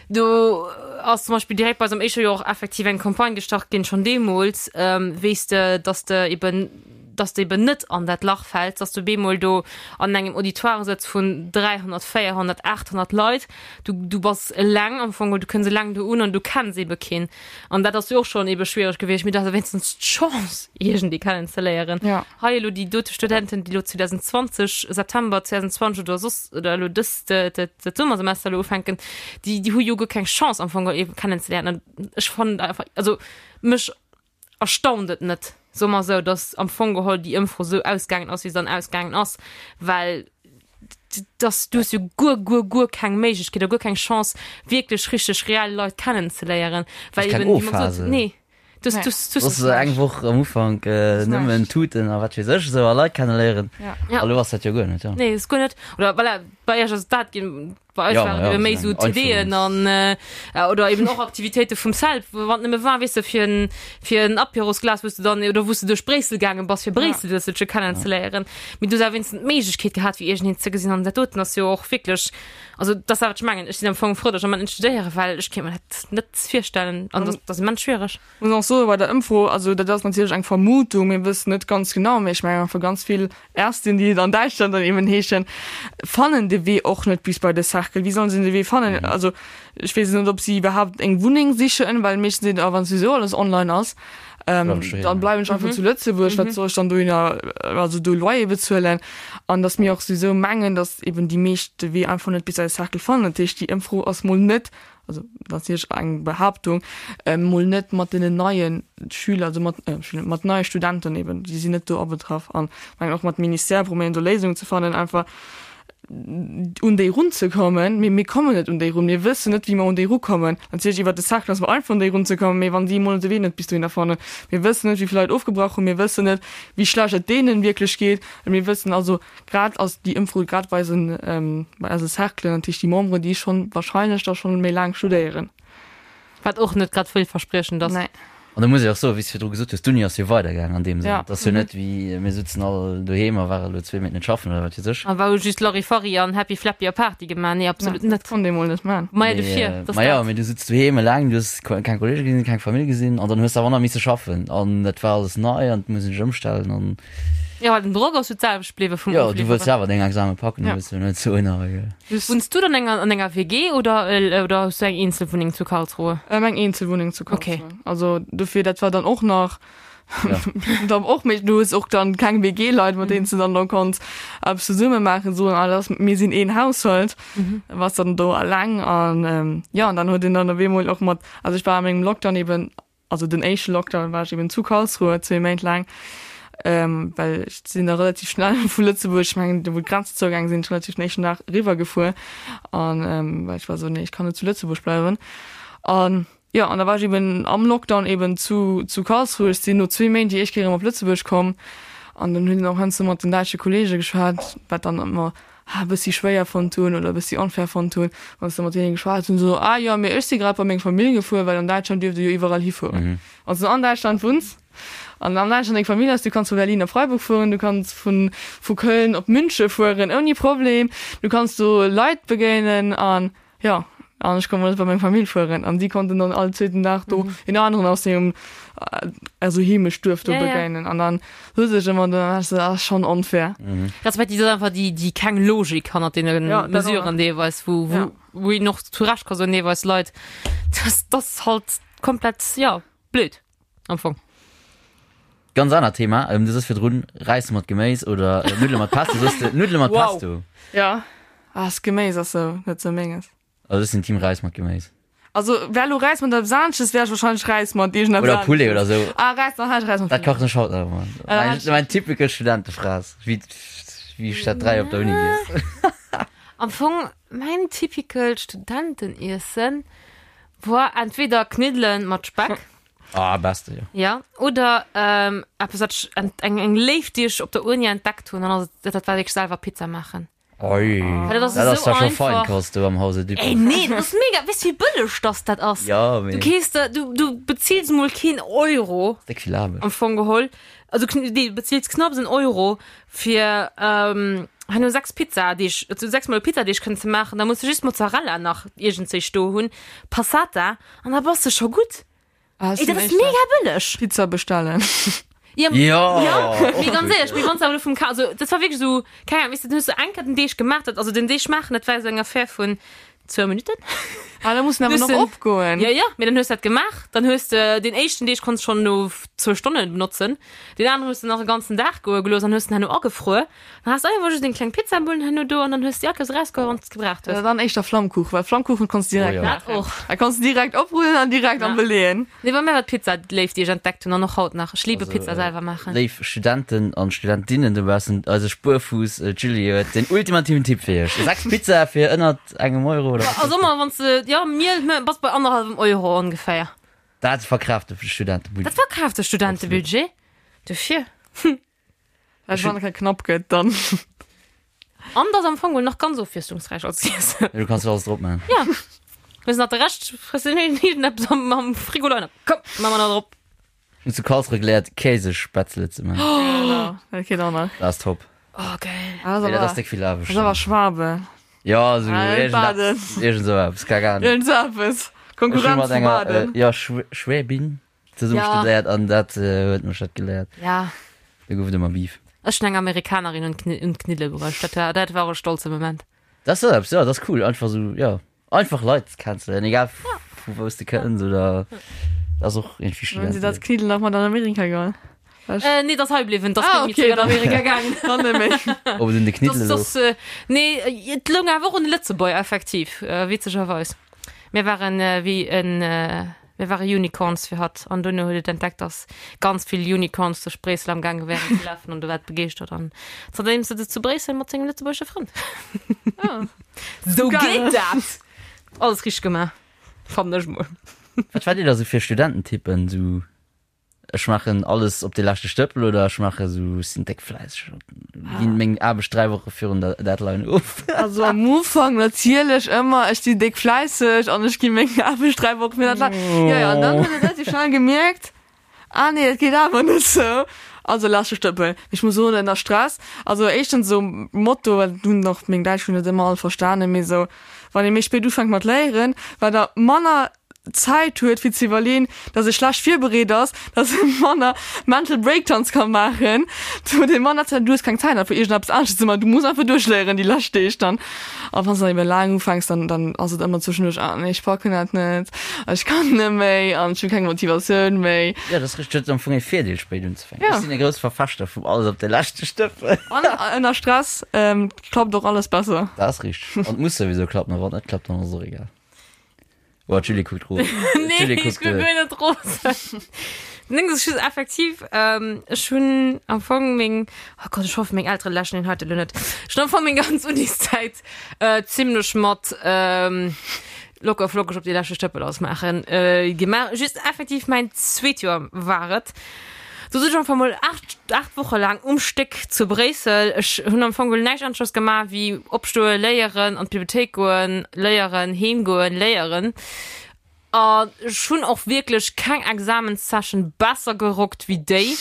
Do ass zum Beispill direkt bei eisem éischte Joer och effektiv eng Campagne gestart ginn, schonn deemools, weess de, dass de eben, dass de eben net an dat Lach fäls, dass du bemol do an engem Auditoire sëtz vun 300, 400, 800 Leit. Du, du bass eleng am Fong, du kënns eleng do un an du kenns ebe keen. An dat ass jo och schonn ebe schwiereg gewiescht, mee du has wéinstens d'Chance, iergendee kennenzeléieren. Ja. Hei elo déi dote Studenten, déi elo 2020, September 2020 oder soss, oder elo dëst, dat Summersemester elo ufänken, déi, déi hu jo guer keng Chance am Fong ee kennenzeléieren. An ech fannen einfach, also mech erstaunt et net, soe mer esou, datt am Fong geholl déi Ëmfro esou ausgaangen ass, wéi se dann ausgaangen ass, well dass du hues jo guer, guer, guer keng Méiglechkeet oder guer keng Chance, wierklech richteg reell Leit kennenzeléieren, well Keng eben, wéi mer gesot, O-Phase. nee. Du ass eng Woch am Ufank nëmmen Tuten a wat weess ech esou a Leit kenneléieren. Ja. A lo ass dat jo guer net, ja. Nee, ass guer net. Oder voilà, bei iech ass dat ginn, bei eis Ja, waren ja, et méi esou sou eng TDen an oder eben och Aktivitéite vum CELP, wann et nëmme war, weess de, fir en, fir en Apérosglas, wou s de dann, oder wou s de duerch Bréissel gaange bass, fir Bréissel e bësselche kennenzeléieren. Mee du hues awer wéinstens d'Méiglechkeet gehat, fir iergendeen ze gesinn. An dat doten ass jo och wierklech, also dat ass dat, wat ech mengen. Ech sinn am Fong frou, datt ech am Moment net studéieren, well ech kéint mer dat net virstellen an dat ass immens schwiereg. Muss och soen, bei der Ëmfro, also dat ass natierlech eng Vermutung, mir wëssen net ganz genau, mee ech mengen einfach ganz vill Ärztin, déi et an Däitschland dann eben heeschen, fannen de Wee och net bis bei de Cercle. Wéi sollen se de Wee fannen? Also ech weess net, ob si iwwerhaapt eng Wunneng sichen, well meeschtens seet, ah wann souwisou alles online ass, dann bleiwen ech einfach zu Lëtzebuerg, wat soll ech dann dohinner, also do Loyer bezuelen? An datt mir och souwisou mengen, datt eben déi meescht de Wee einfach net bis an de Cercle fannen. Dat heescht, déi Ëmfro ass mol net, also dat ass natierlech eng Behaaptung, mol net mat deenen neie Schüler, also mat Schüler, mat neie Studenten eben, déi sinn net do abetraff. An ech mengen och mat Ministère probéieren do Léisungen ze fannen, einfach un déi runzekommen. Mee mir kommen net un déi run, mir wëssen net, wéi mer un déi rukommen. Natierlech iwwert de Cercle ass mer einfach un déi runzekommen, mee wann si emol de Wee net bis dohinner fannen, mir wëssen net, wéi vill Leit ofgebrach hunn, mir wëssen net, wéi schlecht et deenen wierklech geet. Mir wëssen also, Grad ass déi Ëmfro grad bei eisen, bei eise Cerclen, dat heescht déi Memberen, déi schonn wahrscheinlech da schonn méi laang studéieren. Wat och net grad villverspriechend ass. Nee. An da muss ech och soen, wéi s de virdru gesot hues, d'Uni ass jo weidergaangen an deem Sënn. Ja. Et ass jo net wéi mir sutzen all doheem a ware lo zwee Méint net schaffen oder wat weess ech. A war hu just Larifari an Happy Flappy a Party gemaach. Nee, absolut net. net. Konnt ee mol net man. Maja, dofir, Mee, dass ma jo, dat. mee du sutz doheem eleng, du hues keng Kollege gesinn, keng Famill gesinn an dann hues de awer nach misse schaffen an dat war alles nei an et muss een sech ëmstellen an. Jo, well den Drock ass jo d'selwecht bliwwe vum Jo, du wëlls Ofliwweren. jo awer deng Exame packen, du Ja. wëlls jo net soen, awer jo. Just. Wunns du dann enger, an enger WG oder, oder hues du eng Eenzelwunneng zu Karlsruhe? Ähm, eng Eenzelwunneng zu Okay. Karlsruhe. Also dofir, dat war dann och nach Ja. dann och méi, du hues och dann keng WG-Leit, mat deenen s du dann do konns eppes zesumme maachen, soen, ah, dat ass, mir sinn een Haushalt, war's dann do eleng an ähm, ja, an dann huet een dann op eemol och mat, also ech war a mengem Lockdown eben Also den éischte Lockdown war ech eben zu Karlsruhe zwee Méint laang, well ech sinn da relativ schnell vu Lëtzebuerg, ech mengen do wou d'Grenzen zougaange sinn, relativ den éischten Dag eriwwer gefuer an well ech war esou, nee ech kann net zu Lëtzebuerg bleiwen. An jo, an da war ech eben am Lockdown eben zu zu Karlsruhe. Ech sinn no zwee Méint déi éischt Kéier erëm op Lëtzebuerg komm an dann hunn och heiansdo mat den däitsche Kollege geschwat, wat dann ëmmer e bëssi schwéier fonnt hunn oder e bëssi onfair fonnt hunn, wann s de mat deene geschwat hunn, esou, ah jo, mee ech si grad bei meng Famill gefuer, well an Däitschland dierft ee jo iwwerall hifueren. Wann s de an Däitschland wunns an an Däitschland deng Famill hues, du kanns vu Berlin op Freiburg fueren, du kanns vu vu Köln op Münche fueren ouni Problem, du kanns do Leit begéinen an jo. An ech konnt mol net bei meng Famill fueren. An si konnten dann all zweeten Dag do een aneren aus sengem also Heemechtduerf do begéinen. An dann hues ech ëmmer dann war ech sou, ah schonn onfair. Respektiv dat ass einfach déi déi keng Logik hannert deene Mesuren deelweis, wou wou wou een och zu Recht ka soen deelweis Leit, dat ass halt komplett jo blöd. Am Fong. Ganz anert Thema, ähm, du sos virdrun Räis mat Geméis oder äh, Nuddele mat Pesto, sos de Nuddele mat Wow. Pesto? Ja. Ah, das Geméis ass sou net sou menges. Also ech sinn Team Räis mat Geméis. Also wär lo Räis mat eppes anesches, wär ech wahrscheinlech Räis mat iergendeppes Oder Poulet anesches. oder sou. Ah, Räis, dann hätt ech Räis mat Dat Poulet. kachen ech haut nach ëmmer. Ah, Mein, hätt ech- mein typical Studentefraß, wéi, wéi ech dat 3 op der Uni giess. Am Fong mäin typical Studenteniessen war entweder Kniddelen mat Speck. Ah, beste, jo. Ja, oder ähm, eppes, wat ech ent, eng, eng Léift, déi ech op der Uni entdeckt hunn, an ass et, dat war wierklech selwer Pizza maachen. Oi, Well dat ass dat ass esou da scho einfach. Feinkost do am Hause Dupont. Ey, nee, dat ass mega, weess du wéi bëlleg dass dat ass? Ja, mee. Du kees der, du, du bezills mol keen Euro. Déck vill Aarbecht. Am Fong geholl. Also, nee, du bezills knapps en Euro fir, ähm, herno 6 Pizzadeeg, also 6 mol Pizzadeeg kënnen ze maachen. Da muss du just Mozzarella nach iergendzéi do hunn, Passata, an da bass de scho gutt. Ah, Ey, dat ass mega bëlleg. Pizza bestellen. Ja, Ja, ja, mee ganz éierlech, mee wann s de awer elo vum Ka, also dat war wierklech esou, keng Ahnung, weess de, dann hues du eng Kéier den Deeg gemaach, dat, also den Deeg maachen, dat war esou eng Affär vun zwou Minutten. Ah, da muss en awer Hues nach den- opgoen. Ja, ja, mee dann hues du dat gemaach, dann hues de deen éischten Deeg konns schonn no zwou Stonne benotzen, deen aneren hues de nach e ganzen Dag goe gelooss an hues den herno agefruer. Dann has du einfach just deng kleng Pizzabullen herno do an dann hues du déi Akers erausgeholl wann s de gebraucht hues. Oder dann éischter Flammkuchen, well Flammkuchen konns du direkt Oh ja. Dat och. Da konns du direkt oprullen an direkt Ja. am Beleeën. Nee, bei mir war d'Pizza d'Léift, déi ech entdeckt hunn an och haut nach. Ech liebe Also, Pizza äh, selwer maachen. Léif Studenten an Studentinnen dobaussen, eise Spuerfuuss äh, d'Julie huet den ultimativen Tipp fir iech. 6 Pizza fir ënnert engem Euro oder wat? Also ëmmer wann s de, ja, Miel, bass bei annerhallwem Euro ongeféier. Dat verkraaft de Studentebudget. Dat verkraaft de Studentebudget. Dofir. Well wann et knapp gëtt, dann. An dat ass am Fong geholl nach ganz ofwiesslungsräich als Iessen. Du kanns jo alles drop man. Ja. Hues nach de Rescht, frëss de iergendeppes am, am Frigo leien. Komm, ma mer nach drop. Ech hunn zu Karlsruhe geléiert, Käsespätzle ze man. Genau, dat geet och nach. Dat ass top. Oh, geil. Ah, Nee, dat ass déck vill Aarbecht. Dat ass awer Schwabe. Ja, esou Ah, iergendeppes, iergend esou eppes, keng Ahnung. Iergend esou eppes. Ech hu Konkurrenz mat vu enger, Baden. äh, ja, Schwäbin. Zesumme Ja. studéiert an dat huet mech dat geléiert. Ja. Do gouf et ëmmer Beef. Ech hunn eng Amerikanerin un d'Kni- un d'Kniddele bruecht. Dat war, dat war e stolze Moment. Dat ass eppes, ja, dat ass cool. Einfach sou, ja, einfach Leit kennenzeléieren, egal vu wou s de kënns oder dat ass och iergendwéi Hunn si dat Studenteliwen. Kniddel nach mat an Amerika geholl? Äh, nee, dat ass hei bliwwen. Dat ass Ah, net méi okay, zeréck an dann- Amerika gaangen. Dann net méi. Ob et un de Kniddele Das, louch. das, äh, nee, et loung awer och un de Lëtzebuerger, effektiv, äh, witzegerweis. Mir waren äh, wéi en, äh, Mir ware Unicorns fir hatt an duerno huet et entdeckt, dass ganz vill Unicorns duerch Bréissel am gaange wären ze lafen an du war et begeeschtert an zanterdeem sëtzt et zu Bréissel mat sengem lëtzebuergesche Frënd. Sou geet dat! Alles richteg gemaach, fannen ech mol. Wat waart dir da sou fir Studententypen? Sou Ech maachen alles op de leschte Stëppel oder ech maache sou, ech sinn déck fläisseg an ginn meng Aarbecht 3 Woche virun der Deadline of. Also am Ufank natierlech ëmmer, ech sinn déck fläisseg an ech gi meng Aarbecht 3 Woche virun der Deadline. Jo, jo, an dann huet e relativ schnell gemierkt, ah nee, dat geet awer net sou. Also leschte Stëppel. Mee ech muss soen, ënner Stress, also éischtens esou Motto, dat hunn och meng Däitschfrënn net ëmmer all verstanen, mee esou, wann ee méi spéit ufänkt mat léieren, wat der manner Zäit huet fir ze iwwerleen, dass e schlecht virbereet ass, dass e manner Mental Breakdowns ka maachen, du huet e manner Zäit, du hues keng Zäit einfach iergendeppes anesches ze maachen, du muss einfach duerchléieren déi lescht Deeg dann. A wann s de dann ebe laang ufänks, dann dann ass et ëmmer zwëschenduerch, ah nee, ech packen dat net, ech kann net méi an ech hunn keng Motivatioun méi. Jo, dat ass richteg, huet am Fong e Virdeel spéit unzefänken. Ja. Ech sinn e grousse Verfechter vum alles op de leschte Stëppel. An ënner Stress klappt och alles besser. Dat ass richteg. An et muss souwisou klappen, a wann et net klappt, dann ass et och egal. Oh, d'Julie kuckt rosen. Nee, D'Julie ech kuckt, kuck äh, guer net rosen. Den Ding ass just effektiv, ähm, ech hunn am Fong meng, oh Gott, ech hoffe meng Eltere läschen den heite lo net. Ech hunn am Fong meng ganz Uniszäit äh, zimmlech mat ähm, locker flockeg op déi leschte Stëppel ausmaachen äh, gemaach. Just effektiv mäin zweet Joer war et. Do sot ech einfach mol 8, 8 Woche laang um Stéck zu Bréissel. Ech hunn am Fong geholl näischt aneschters gemaach wéi opstoen, léieren, an d'Bibliothéik goen, léieren, heem goen, léieren. An ech hunn och wierklech keng Examenssession besser gerockt wéi déi.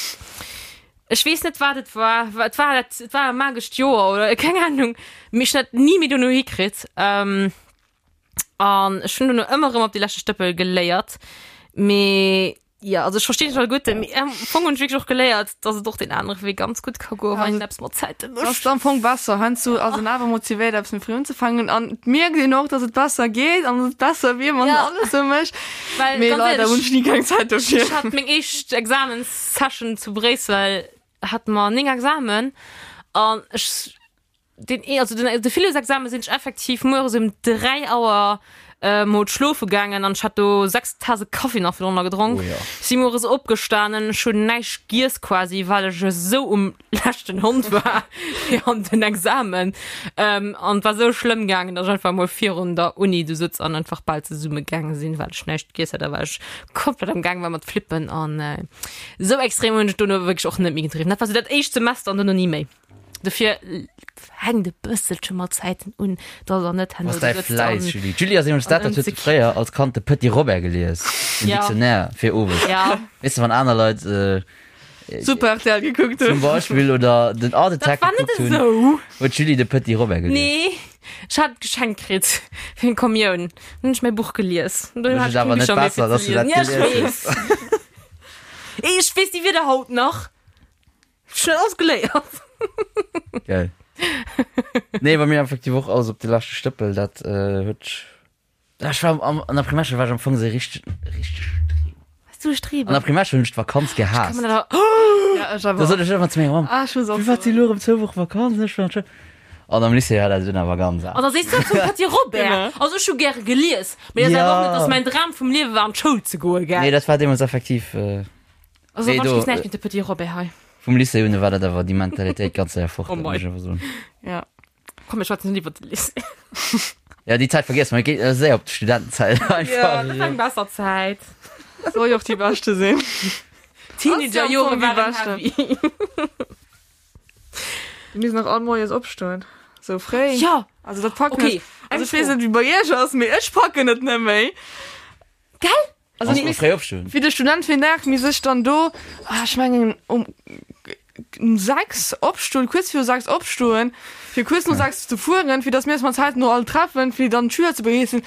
Ech weess net, wat et war. Et war dat, et war e magescht Joer oder keng Ahnung. Mee ech hunn dat ni méi dono hikritt. An ech hunn dono ëmmer erëm op déi leschte Stëppel geléiert. Mee jo, also ech verstinn dech alleguerten, mee am Fong hunn ech wierklech och geléiert, dass et och deen anere Wee ganz gutt ka goen, wann een eppes mat Zäite mécht. Ass am Fong besser. Heiansdo ass een awer motivéiert, eppes méi fréi unzefänken an et mierkt een och, dass et besser geet an dass et besser wier, wann een alles esou mécht. Well Mee ganz leider hunn éierlech, ech ni keng Zäit dofir. ech hat meng éischt Examenssession zu Bréissel, hate mer 9 Examen an ech Den, also den, de Philosexamen sinn ech effektiv mueres um 3 Auer äh, mol schlofe gaangen an ech hat do 6 Tase Kaffi nach virdrunner gedronk. Oh ja. Si mueres opgestanen, ech hunn näischt giess quasi, well ech esou um leschten Hond war fir an den Examen. Ähm, an et war esou schlëmm gaangen, datt ech einfach mol virun der Uni du sëtz an einfach bal zesumme gaange sinn, well ech näischt giess hat a well ech komplett am Gaang war mat flippen an äh, esou extrem hunn ech dono wierklech och net méi gedriwwen. Dat war sou dat éischt Semester an dono ni méi. Dofir hänkt e bësselche mat Zäiten un, dass der net herno Was däi do sëtzt Fläiss, an Julie. D'Julie ass nämlech dat, dat huet fréier als Kand de Petit Robert gelies, den Ja. Dictionnaire fir owes. Ja. Weess de, wann aner Leit äh, Super RTL gekuckt zum hunn. Beispill oder den Art Dat Attack war net gekuckt hunn, esou. huet d'Julie de Petit Robert gelies. Nee, ech hat et geschenkt kritt fir eng Kommioun. Dann hunn ech mäi Buch gelies. An dunn Mécht hat et ech keng awer net Bicher méi besser, fir ze dass du dat liesen. Ja, ech gelies weess. hues. Ech weess déi Wierder haut nach. Schnell alles geléiert. Geil. Nee, bei mir effektiv och alles op de leschte Stëppel, dat äh, huet Ja, ech war am, an der Primärschoul war ech am Fong sou richteg, richteg Streber. Warst du e Streber? An der Primärschoul hunn ech d'Vakanz gehaasst. Kann man dat awer- Ja, ech awer Da sot ech ëmmer zu menger Mamm, Ah, ech muss och Firwat si soen. lo erëm zwou Woche Vakanz? Ech war an d'Schoul. An am Lycée war dat dunn awer ganz An anescht. da sees du zum Petit Robert. Genau. Also ech hu gäre gelies, mee dat ass awer och Ja. net, dass mäin Dram vum Liewe war an d'Schoul ze goen, gell? Nee, dat war deemools effektiv, äh, Also Nee, wann do, ech weess näischt géint de Petit Robert hei. Vum Lycée un war dat awer déi Mentalitéit ganz séier fort, Oh dat mei. muss ech awer soen. Ja. Komm, mir schwätzen net iwwer de Lycée. Ja, déi Zäit vergiesse mer, mir geet séier op d'Studentenzäit Ja, einfach. dat war eng besser Zäit. Soll jo och déi beschte sinn. Teenagerjore déi waren beschte. heavy. Mir müssen nach all moies opstoen. Sou fréi. Ja, Also dat packen Okay, ech. Also eng ech weess Fro. net wéi bei iech ass, mee ech packen et net méi. Gell? Also Kannst mir du fréi opstoen? Wéi de Student fir den Dag, mir sech dann do, ah, ech mengen um um 6 opstoen, kuerz viru 6 opstoen, fir kuerz no 6 ze fueren, fir dass mir eis mat Zäiten no all treffen, fir dann d'Schüler ze begréissen.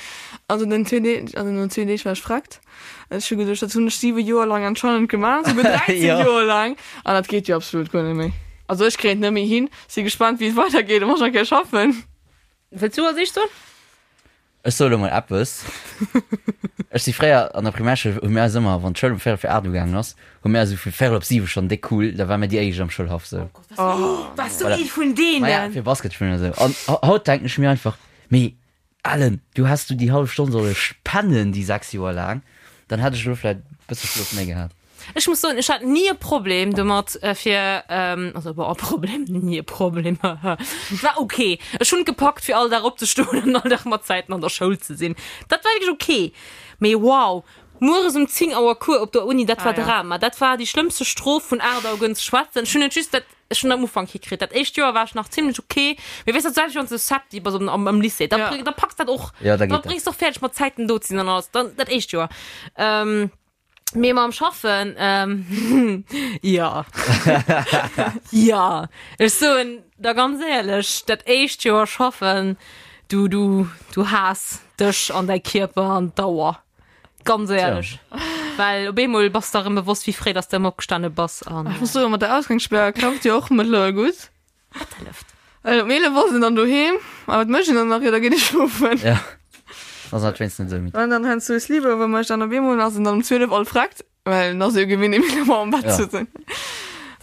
Also den zwee Deeg, also no zwee Deeg war ech freckt. Ech hu geduecht, dat hunn ech 7 Joer lang anscheinend gemaach, souguer 13 Ja. Joer lang. An dat geet jo absolut guer net méi. Also ech kréien et net méi hin. Si gespannt, wéi et weidergeet, wann ech nach kéier schaffen. Wëlls du als éischt soen? Ech soe lo mol eppes. Ech si fréier an der Primärschoul, hu mir eis ëmmer, wann d'Schoul um véierel vir 8 ugaangen ass, hu mir eis esou vu véierel op 7 schonn déck cool, da ware mir déi éischt am Schoulhaff sou. Wars du Voilà. ee vun Maja, deenen? fir Basket spillen oder sou. An haut denken ech mir einfach, mee Ellen, du häss du déi hallef Stonn solle pennen déi 6 Joer laang, dann hätt ech elo vläit e bësse Schlof méi gehat. Ech muss soen, ech hat ni e Problem domat fir, also bon, e Problem, ni e Problem, et war ok. Ech hunn et gepackt fir all Dag opzestoen an all Dag mat Zäiten an der Schoul ze sinn. Dat war wierklech ok. Mee wow, mueres um 10 Auer Cours op der Uni, dat war Ah, ja. Drama. Dat war déi schlëmmste Strof vun 8 Auer gënn ze schwätzen. Ech hunn et just dat, ech hunn am Ufank hikritt. Dat éischt Joer war ech nach zimlech ok. Mee weess dat selwecht wann s de Septi bass am, am Lycée, da, Ja. da packs dat och, Ja, da da geet dat. bréngs de och fäerdeg mat Zäiten do ze sinn an alles. Dann dat éischt Joer. Mee mam Schaffen, ähm, ja. Ja. Ech soen der ganz éierlech, dat éischt Joer schaffen, du, du, du haass dech an däi Kierper an d'Auer. Ganz éierlech. Well op eemol bass der erëm bewosst, wéi fréi dass de ëmmer opgestane bass an. Ech muss soen, mat der Ausgangssperr klappt jo och mëttlerweil gutt. Wat hëlleft? Well um 11 ass en dann doheem. A wat mécht en dann nach? Jo, da geet e schlofen. Ja. Ass halt wéinstens net esou midd. An dann heiansdo e Sleepover mécht an op eemol ass en dann um 12 all freckt, well en ass jo gewinnt, um 11 Auer am Bett Ja. ze sinn.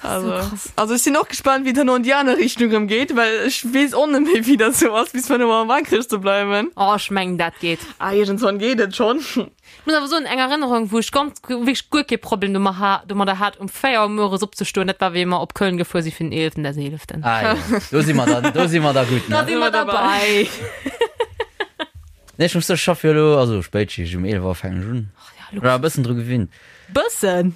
Das ist so Also, krass. also ech sinn och gespannt, wéi et herno an déi aner Richtung erëm geet, well ech weess och net méi, wéi dat sou ass, bis 5 Auer wakereg ze bleiwen. Oh, ech mengen, dat geet. Ah, iergendswann geet et schonn. Ech muss awer soen, eng Erënnerung, wou ech ganz, wierklech guer kee Problem domat ha, domadder hat, um 4 Auer mueres opzestoen, dat war, wéi mer op Köln gefuer si fir den eeleften des eeleften. Ah jo, do si mer dann, do si mer da gutt, Da ne? si mer derbei. Nee, ech muss soen, ech schaff jo elo, also Spéitschicht, um 11 Auer fänken ech un. Ja, Ech war e bëssen dru gewinnt. Bëssen?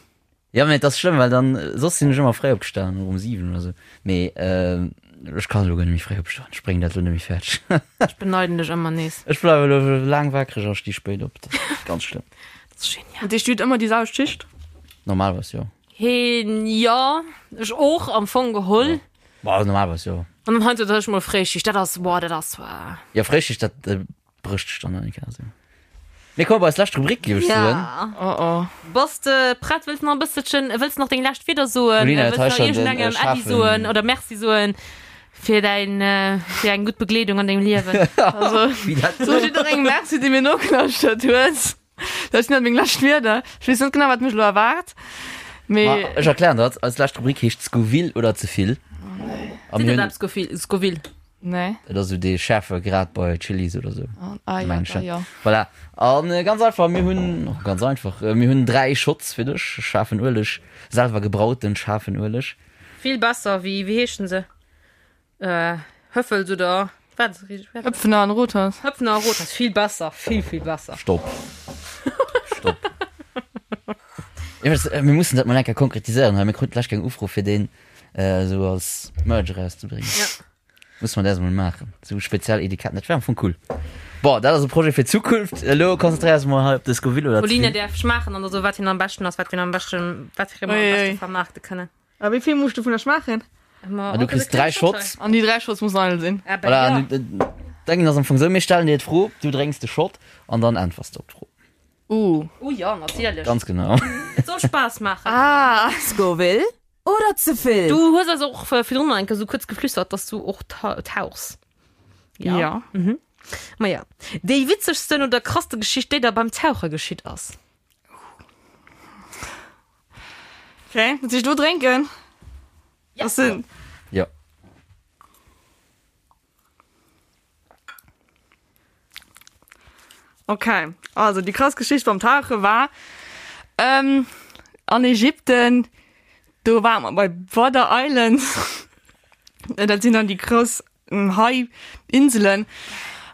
Ja, mee et ass schlëmm, well dann, soss sinn ech ëmmer fréi opgestanen, och um 7 oder sou. Mee ech kann elo guer net méi fréi opstoen, ech bréngen dat elo net méi fäerdeg. Ech beneiden dech ëmmer nees. Ech bleiwe elo laang wakereg a sti spéit op, dat ass ganz schlëmm. Dat ass genial. Dat heescht, du hutt ëmmer déi selwecht Schicht? Normalerweis jo. Heen, jo, ech och am Fong geholl. Bah, normalerweis jo. An dann heiansdo huet ech mol Fréischicht, dat ass, boah, dat ass. Jo, Fréischicht, dat. Brécht sech dann eng Kéier esou. Mir komme bei eis lescht Rubrik, géif ech soen. Ja. Oh oh. Bass de prett? Wëlls nach e bësselchen, wëlls nach deng lescht Wieder soen? Paulina huet Wëlls hei nach schon den, äh, iergendengem Äddi schaarfen- soen oder Merci soen fir däin, äh, fir eng gutt Begleedung an dengem Liewen? Also, Wéi dat so jidderengem Merci, dee mir nogelauschtert huet. Dat sinn dat meng lescht Wierder. Ech weess net genau, wat mech elo erwaart. Mee Ma ech erklären dat. Eis lescht Rubrik heescht Scoville oder ze vill. A Seet mir dat hunn, eppes, Scoville? Scoville? nee. dat ass esou dee schäerfe Grad bei Chilis oder esou. Ah, ja, Mengen ech, da, ja. ja. Voilà. An äh, ganz einfach, mir hunn, oh, ganz einfach, äh, mir hunn dräi Shots fir dech, schaarfen Ueleg, selwer gebrauten schaarfen Ueleg. Vill besser wéi, wéi heeschen se? Äh, Höffels oder wat? Höpfner an Rothaus. Höpfner a Rothaus, vill besser, vill, vill besser. Stopp. Stopp. Iwwregens, äh, mir mussen dat mol eng Kéier konkretiséieren hei. Mir kruten d'lescht Kéier eng Ufro fir deen äh, esou als Merch erauszebréngen. Ja. Musse mer dat emol maachen. Esou speziell Etiketten, dat wär am Fong cool. Bon, dat ass e Projet fir d'Zukunft. Elo konzentréiere eis mol hei op de Scoville oder Pauline d'Vill. däerf schmaachen an da soe wat hien am beschten ass, wat fir en am beschten, wat fir e mer am Ui, beschte ui. vermaarte kënnen. A wéi vill muss ech dovunner schmaachen? Ma Ah, du kriss 3 Shots. An déi 3 Shots mussen eidel sinn. Ah, Voilà, ja. an du- Denken ass am Fong sou, mir stellen dir d'Fro, du drénks de Shot an dann äntwers de op d'Fro. Uh. Oh ja, natierlech. Ganz genau. Et soll Spaass maachen. Ah. Scoville oder ze vill? Du hues eis och virdrun nach eng Kéier sou kuerz geflüstert, dass du och tauchs. Ja. ja. Mhm. Ma ja. Déi witzegsten oder krasste Geschicht, déi der beim Tauche geschitt ass? Okay, muss ich do drénken? Ja. Das sind. Ja. Okay, also die krass Geschicht beim Tauche war ähm, an Ägypten, do war man bei Border Island. Dat sinn dann déi grouss Hai Inselen.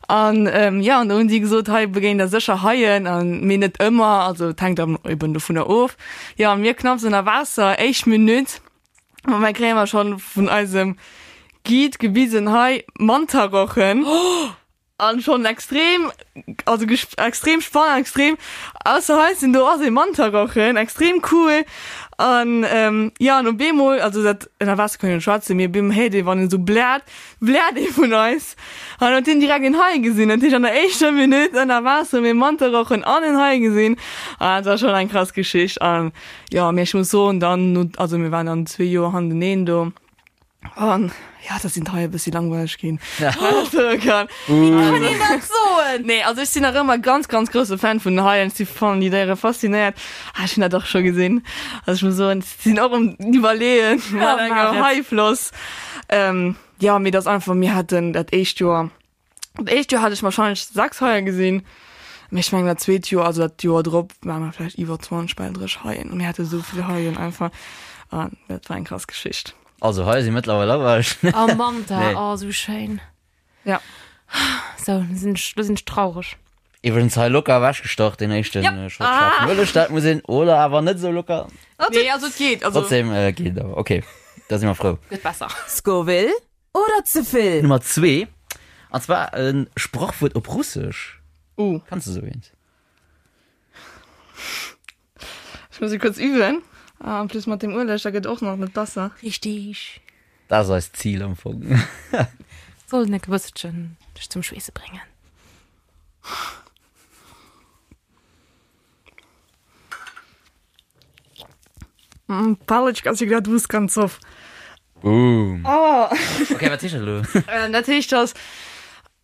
An ähm, ja, an do hunn si gesot, hei begéint der sécher Haien, an mee net ëmmer, also et hänkt dann eben dovunner of. Ja, an mir knapps ënner Waasser, éischt Minutt, ma mir kréie mer schonn vun eisem Guide gewisen, hei Mantarochen. An schon extrem, also extrem spannend, extrem ausser Hals sinn, do ass ee Mantarochen, extrem cool. An ähm, ja, an op eemol, also dat ënner Waasser kann een net schwätzen, mee op eemol héiert ee wann en esou bläert, bläert ee vun eis. An huet hien direkt een Hai gesinn. Dat heescht an der éischter Minutt ënner Waasser hu mir Mantarochen an en Hai gesinn. An dat war schon eng krass Geschicht. An jo, mee ech muss soen, dann no, also mir waren dann zwee Joer handeneen do. An ja, da sinn d'Haie bëssi langweileg ginn. Kann. Wéi kann een dat soen? Nee, also ech sinn nach ëmmer ganz, ganz grousse Fan vun den Haien. Ech si fannen déi Déiere faszinéiert. Ah, ech hunn dat och scho gesinn. Also ech muss soen, ech sinn och um Iwwerleeën mat enger Haifloss. Ähm, ja, mee dat ass einfach, mir haten dat éischt Joer, Dat éischt Joer hat ech wahrscheinlech 6 Haie gesinn, mee ech mengen dat zweet Joer, also dat Joer drop, ware mer vläicht iwwer 20 bal 30 Haien. Mir hate sou vill Haien einfach an dat war eng krass Geschicht. Also Haie si mëttlerweil awesch. Oh Manta, Nee. oh sou schéin. Ja. Sou, lo sinn ech, lo sinn ech traureg. Iwwregens hei locker ewechgestach deen éischten Ja. Shot schaarfen Ueleg, dat muss een, oder awer net sou locker. Nee, also et geet, also. Trotzdem geet et awer, okay, da si mer frou. Gëtt besser. Scoville Oder ze vill? Nummer zwee, an zwar e Sprachwuert op Russesch. Uh. Kanns de sou eent? Ech muss e kuerz üben. Ah, en plus mat dem Ueleg, da gëtt och nach net besser. Richtig. Dat ass eist Zil am Fong. Soll en e bësselchen dech zum Schweesse bréngen. Палочка всегда двух концов. Boom. Oh. Okay, wat heescht dat elo? Äh, dat heescht, dass,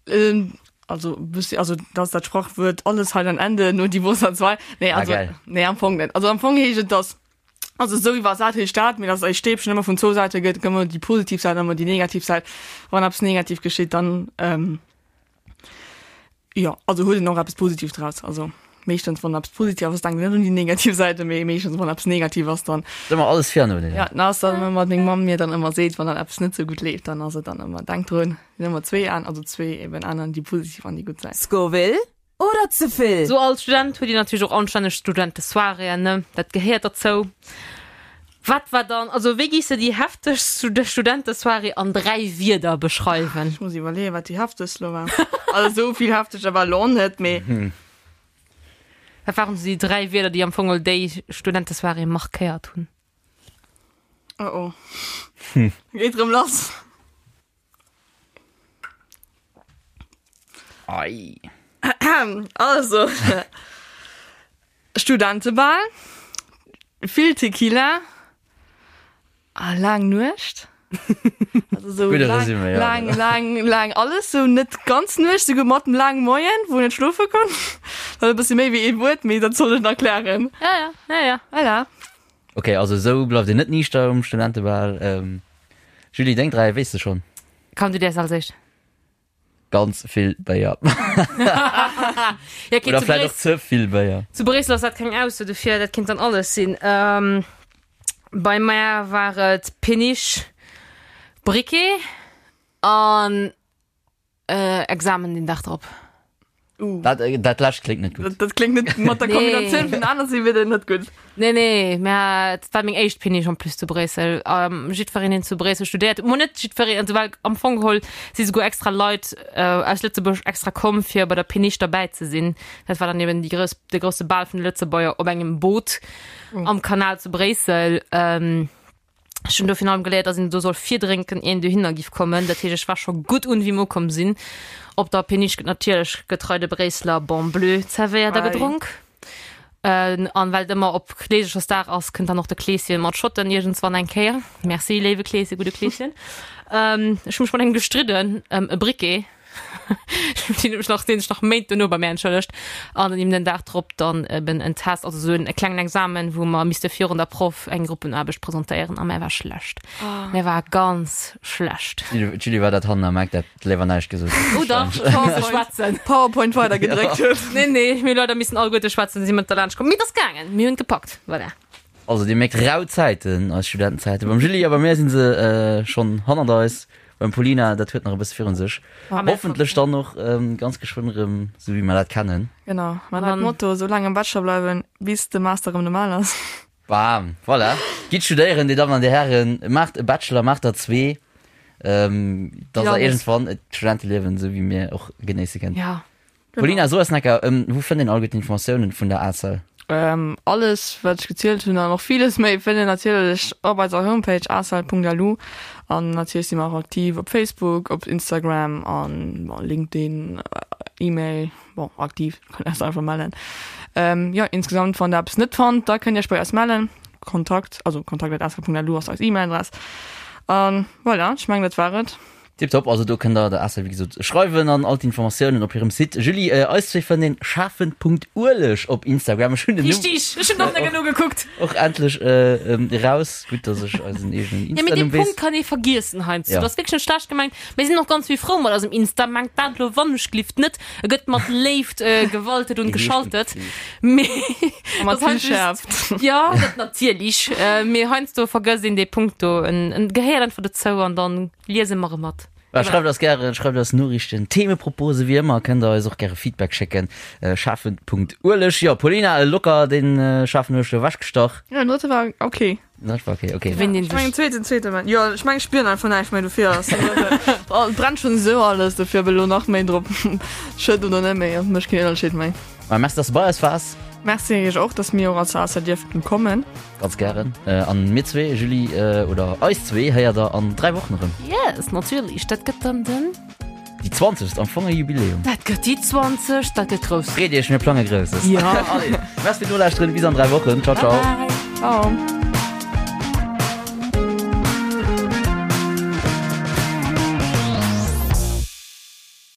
ähm, also, bëssi, also, dass dat Sprachwuert alles hat ein Ende, nur die Wurst hat zwei. Nee, Ah, also, geil. nee, am Fong net. Also, am Fong heescht et, dass, also, esou iwwersat heescht dat, mee dass e Stäbchen ëmmer vun zwou Säite gëtt, gëtt ëmmer déi positiv Säit an ëmmer déi negativ Säit. Wann eppes negativ geschitt, dann, ähm, Jo, also huet een och eppes Positives draus. Also meeschtens wann eppes positiv ass, denkt een net un déi negativ Säite, mee meeschtens wann eppes negativ ass, dann. Ass ëmmer alles vir an nodeeler. Ja, dann ass dann ëmmer, wat meng Mamm mir dann ëmmer seet, wann dann eppes net sou gutt leeft, dann ass et dann ëmmer, denk drun, sinn ëmmer zwee Aen, also zwee eben Aen, déi positiv an déi gutt Säit. Scoville oder ze vill? Sou als Student huet een natierlech och anstänneg Studentesoiréeën, ne? Dat gehéiert derzou. Wat war dann, also wéi giss de déi heftegst Studentesoirée an 3 Wierder beschreiwen? Ech muss iwwerleeën, wat déi heftegst lo war. Also esou vill hefteger war lo net, mee. Wat waren sou déi 3 Wierder, déi am Fong déi Studentesoirée markéiert hunn? Oh oh. Geet rëm lass. Ei. Also, Studentebal, vill Tequila a laang Nuecht. Also sou Gudde laang, Resumé, ja. laang, laang, laang alles, sou net ganz Nuecht, souguer mat dem laange Moien, wou een net schlofe konnt. Dat e bëssi méi wéi ee Wuert, mee dat soll ech nach klären. Ja, ja, ja, ja. Voilà. Ok, also esou bleift een net niichter um Studentebal. Julie, deng 3 weess de schonn? Komm, du däers als éischt. Ganz vill Béier. Ja, okay, Oder zu vläicht och Bréissel, ze vill Béier. zu Bréissel ass dat keng Ausso, dofir dat kinnt dann alles sinn. Ähm, bei mär war et Péniche, Briquet an äh, Examen den Dag drop. Uh. Dat, äh, dat lescht kléngt net gutt. Dat, dat kléngt net mat der Nee. Kombinatioun vun aner si wieder net gutt. Nee, nee, mä et war meng éischt Péniche en plus zu Bréissel. Ähm, jiddwereen, deen zu Bréissel studéiert, mo net jiddwereen, also well am Fong geholl si souguer extra Leit äh, aus Lëtzebuerg extra komm, fir bei der Péniche derbäi ze sinn. Dat war dann eben déi grouss, de grousse Bal vun de Lëtzebuerger op engem Boot am Kanal zu Bréissel. Ähm, Ech hunn do virun allem geléiert, dass een do soll virdrénken, ier een dohinner giff kommen. Dat heescht, ech war scho gutt un, wéi mer ukomm sinn. Op der Péniche gëtt natierlech getrei de Bréisseler Bon Bleu zerwéiert a gedronk. An well et ëmmer op Kleesechersdag ass, kënnt dann och de Kleeschen mat Schotten iergendswann eng Kéier. Merci, léiwe Kleeschen, gudde Kleeschen. Ech hu mech mat engem gestridden ëm e Briquet. Deen huet mech nach, deen sech nach Méint dono bei mär entschëllegt. An dann eben den Dag drop dann eben en Test, also esou en e klengen Examen, wou mer misste virun der Proff eng Gruppenaarbecht presentéieren a mär war schlecht. Mär war ganz schlecht. D'Julie war dat hannen am Eck, dat léiwer näischt gesot huet. Oh dach, ech hu misse schwätzen. PowerPoint weidergedréckt huet. Nee, nee, mir hu leider missen alleguerte schwätzen, si mat derlaanscht komm. Mee et ass gaangen, mir hunn et gepackt, voilà. Also dir mierkt, rau Zäiten, eis Studentenzäiten. Beim Julie a bei mir si se schonn hannert eis. Beim Paulina, dat huet nach e bësse virun sech. Hoffentlech dann och ganz geschwënn erëm esou wéi mer dat kennen. Genau, mä dat Motto, esou laang am Bachelor bleiwen, bis de Master erëm normal ass. Bam, voilà. Gitt studéieren, Dir Dammen an Dir Hären. Maacht e Bachelor, maacht der zwee, dass der iergendwann et Studenteliewen esou wéi mir och genéisse kënnt. Ja. Paulina, so eis necker, wou fënnt een all gutt Informatiounen vun der ACEL? Alles wat ech gezielt hunn an och villes méi fënnt een natierlech op eiser Homepage acel.lu an natierlech si mer och aktiv op Facebook, op Instagram an bon LinkedIn, E-Mail, bon aktiv, kënnt eis einfach mellen. Jo insgesamt wann der eppes net fannt, da kënnt dir iech bei eis mellen, Kontakt, also kontakt@acel.lu ass eis E-Mail-Adress an voilà, ech mengen dat war et. Tiptop, also do kënnt der der Acel wéi gesot schreiwen an all d'Informatiounen op hirem Site. Julie, eis zwee fënnt een schafen.ueleg op Instagram. Ech hunn den Numm Richtig, ech hunn och net genuch gekuckt. och endlech eraus. Gutt, dass ech eisen eegenen Ja, mee dee Insta-Numm weess. Punkt kann ee vergiessen heiansdo. Ja. Dat ass wierklech net schlecht gemengt. Mir sinn och ganz vill frou mat eisem Insta. Mengt dat elo wannechglift net. E gëtt mat Léift gewaltet und geschaltet. Mee A mat dat vill heiansdo Schäerft. Ja, dat natierlech. Mee heiansdo vergësst een dee Punkt do. En en gehéiert einfach dozou an dann Liese mer e mat. Voilà, schreift eis gären, schreift eis Noriichten, Themeproposen, wéi ëmmer kënnt der eis och gäre Feedback schécken, schafen.ueleg. Jo, Paulina, locker den schaarfen Ueleg do ewechgestach. Jo, den drëtte war ok. Den drëtte war ok, ok. Gewinnt een Ech mengen sech. zweeten, zweete war, jo, ech mengen ech spieren einfach näischt méi, dofir ass den drëtte, et brennt schonn esou alles, dofir ob elo nach méi drop schëtt oder net méi, mécht keen Ënnerscheed méi. Ma merci, dass de bei eis waars. Merci iech och, dass mir och als ASA dierften kommen. Ganz gären. An mir zwee, Julie, oder eis zwee, héiert der an 3 Wochen erëm. Yes, natierlech. Dat gëtt dann den. Déi 20. Am Fong e Jubiläum. Dat gëtt déi 20. Dat gëtt grouss. Freet iech, mir plange Grousses. Ja. Allez, merci fir d'Nolauschteren. Bis an 3 Wochen. Ciao, ciao. Bye, bye. Ciao.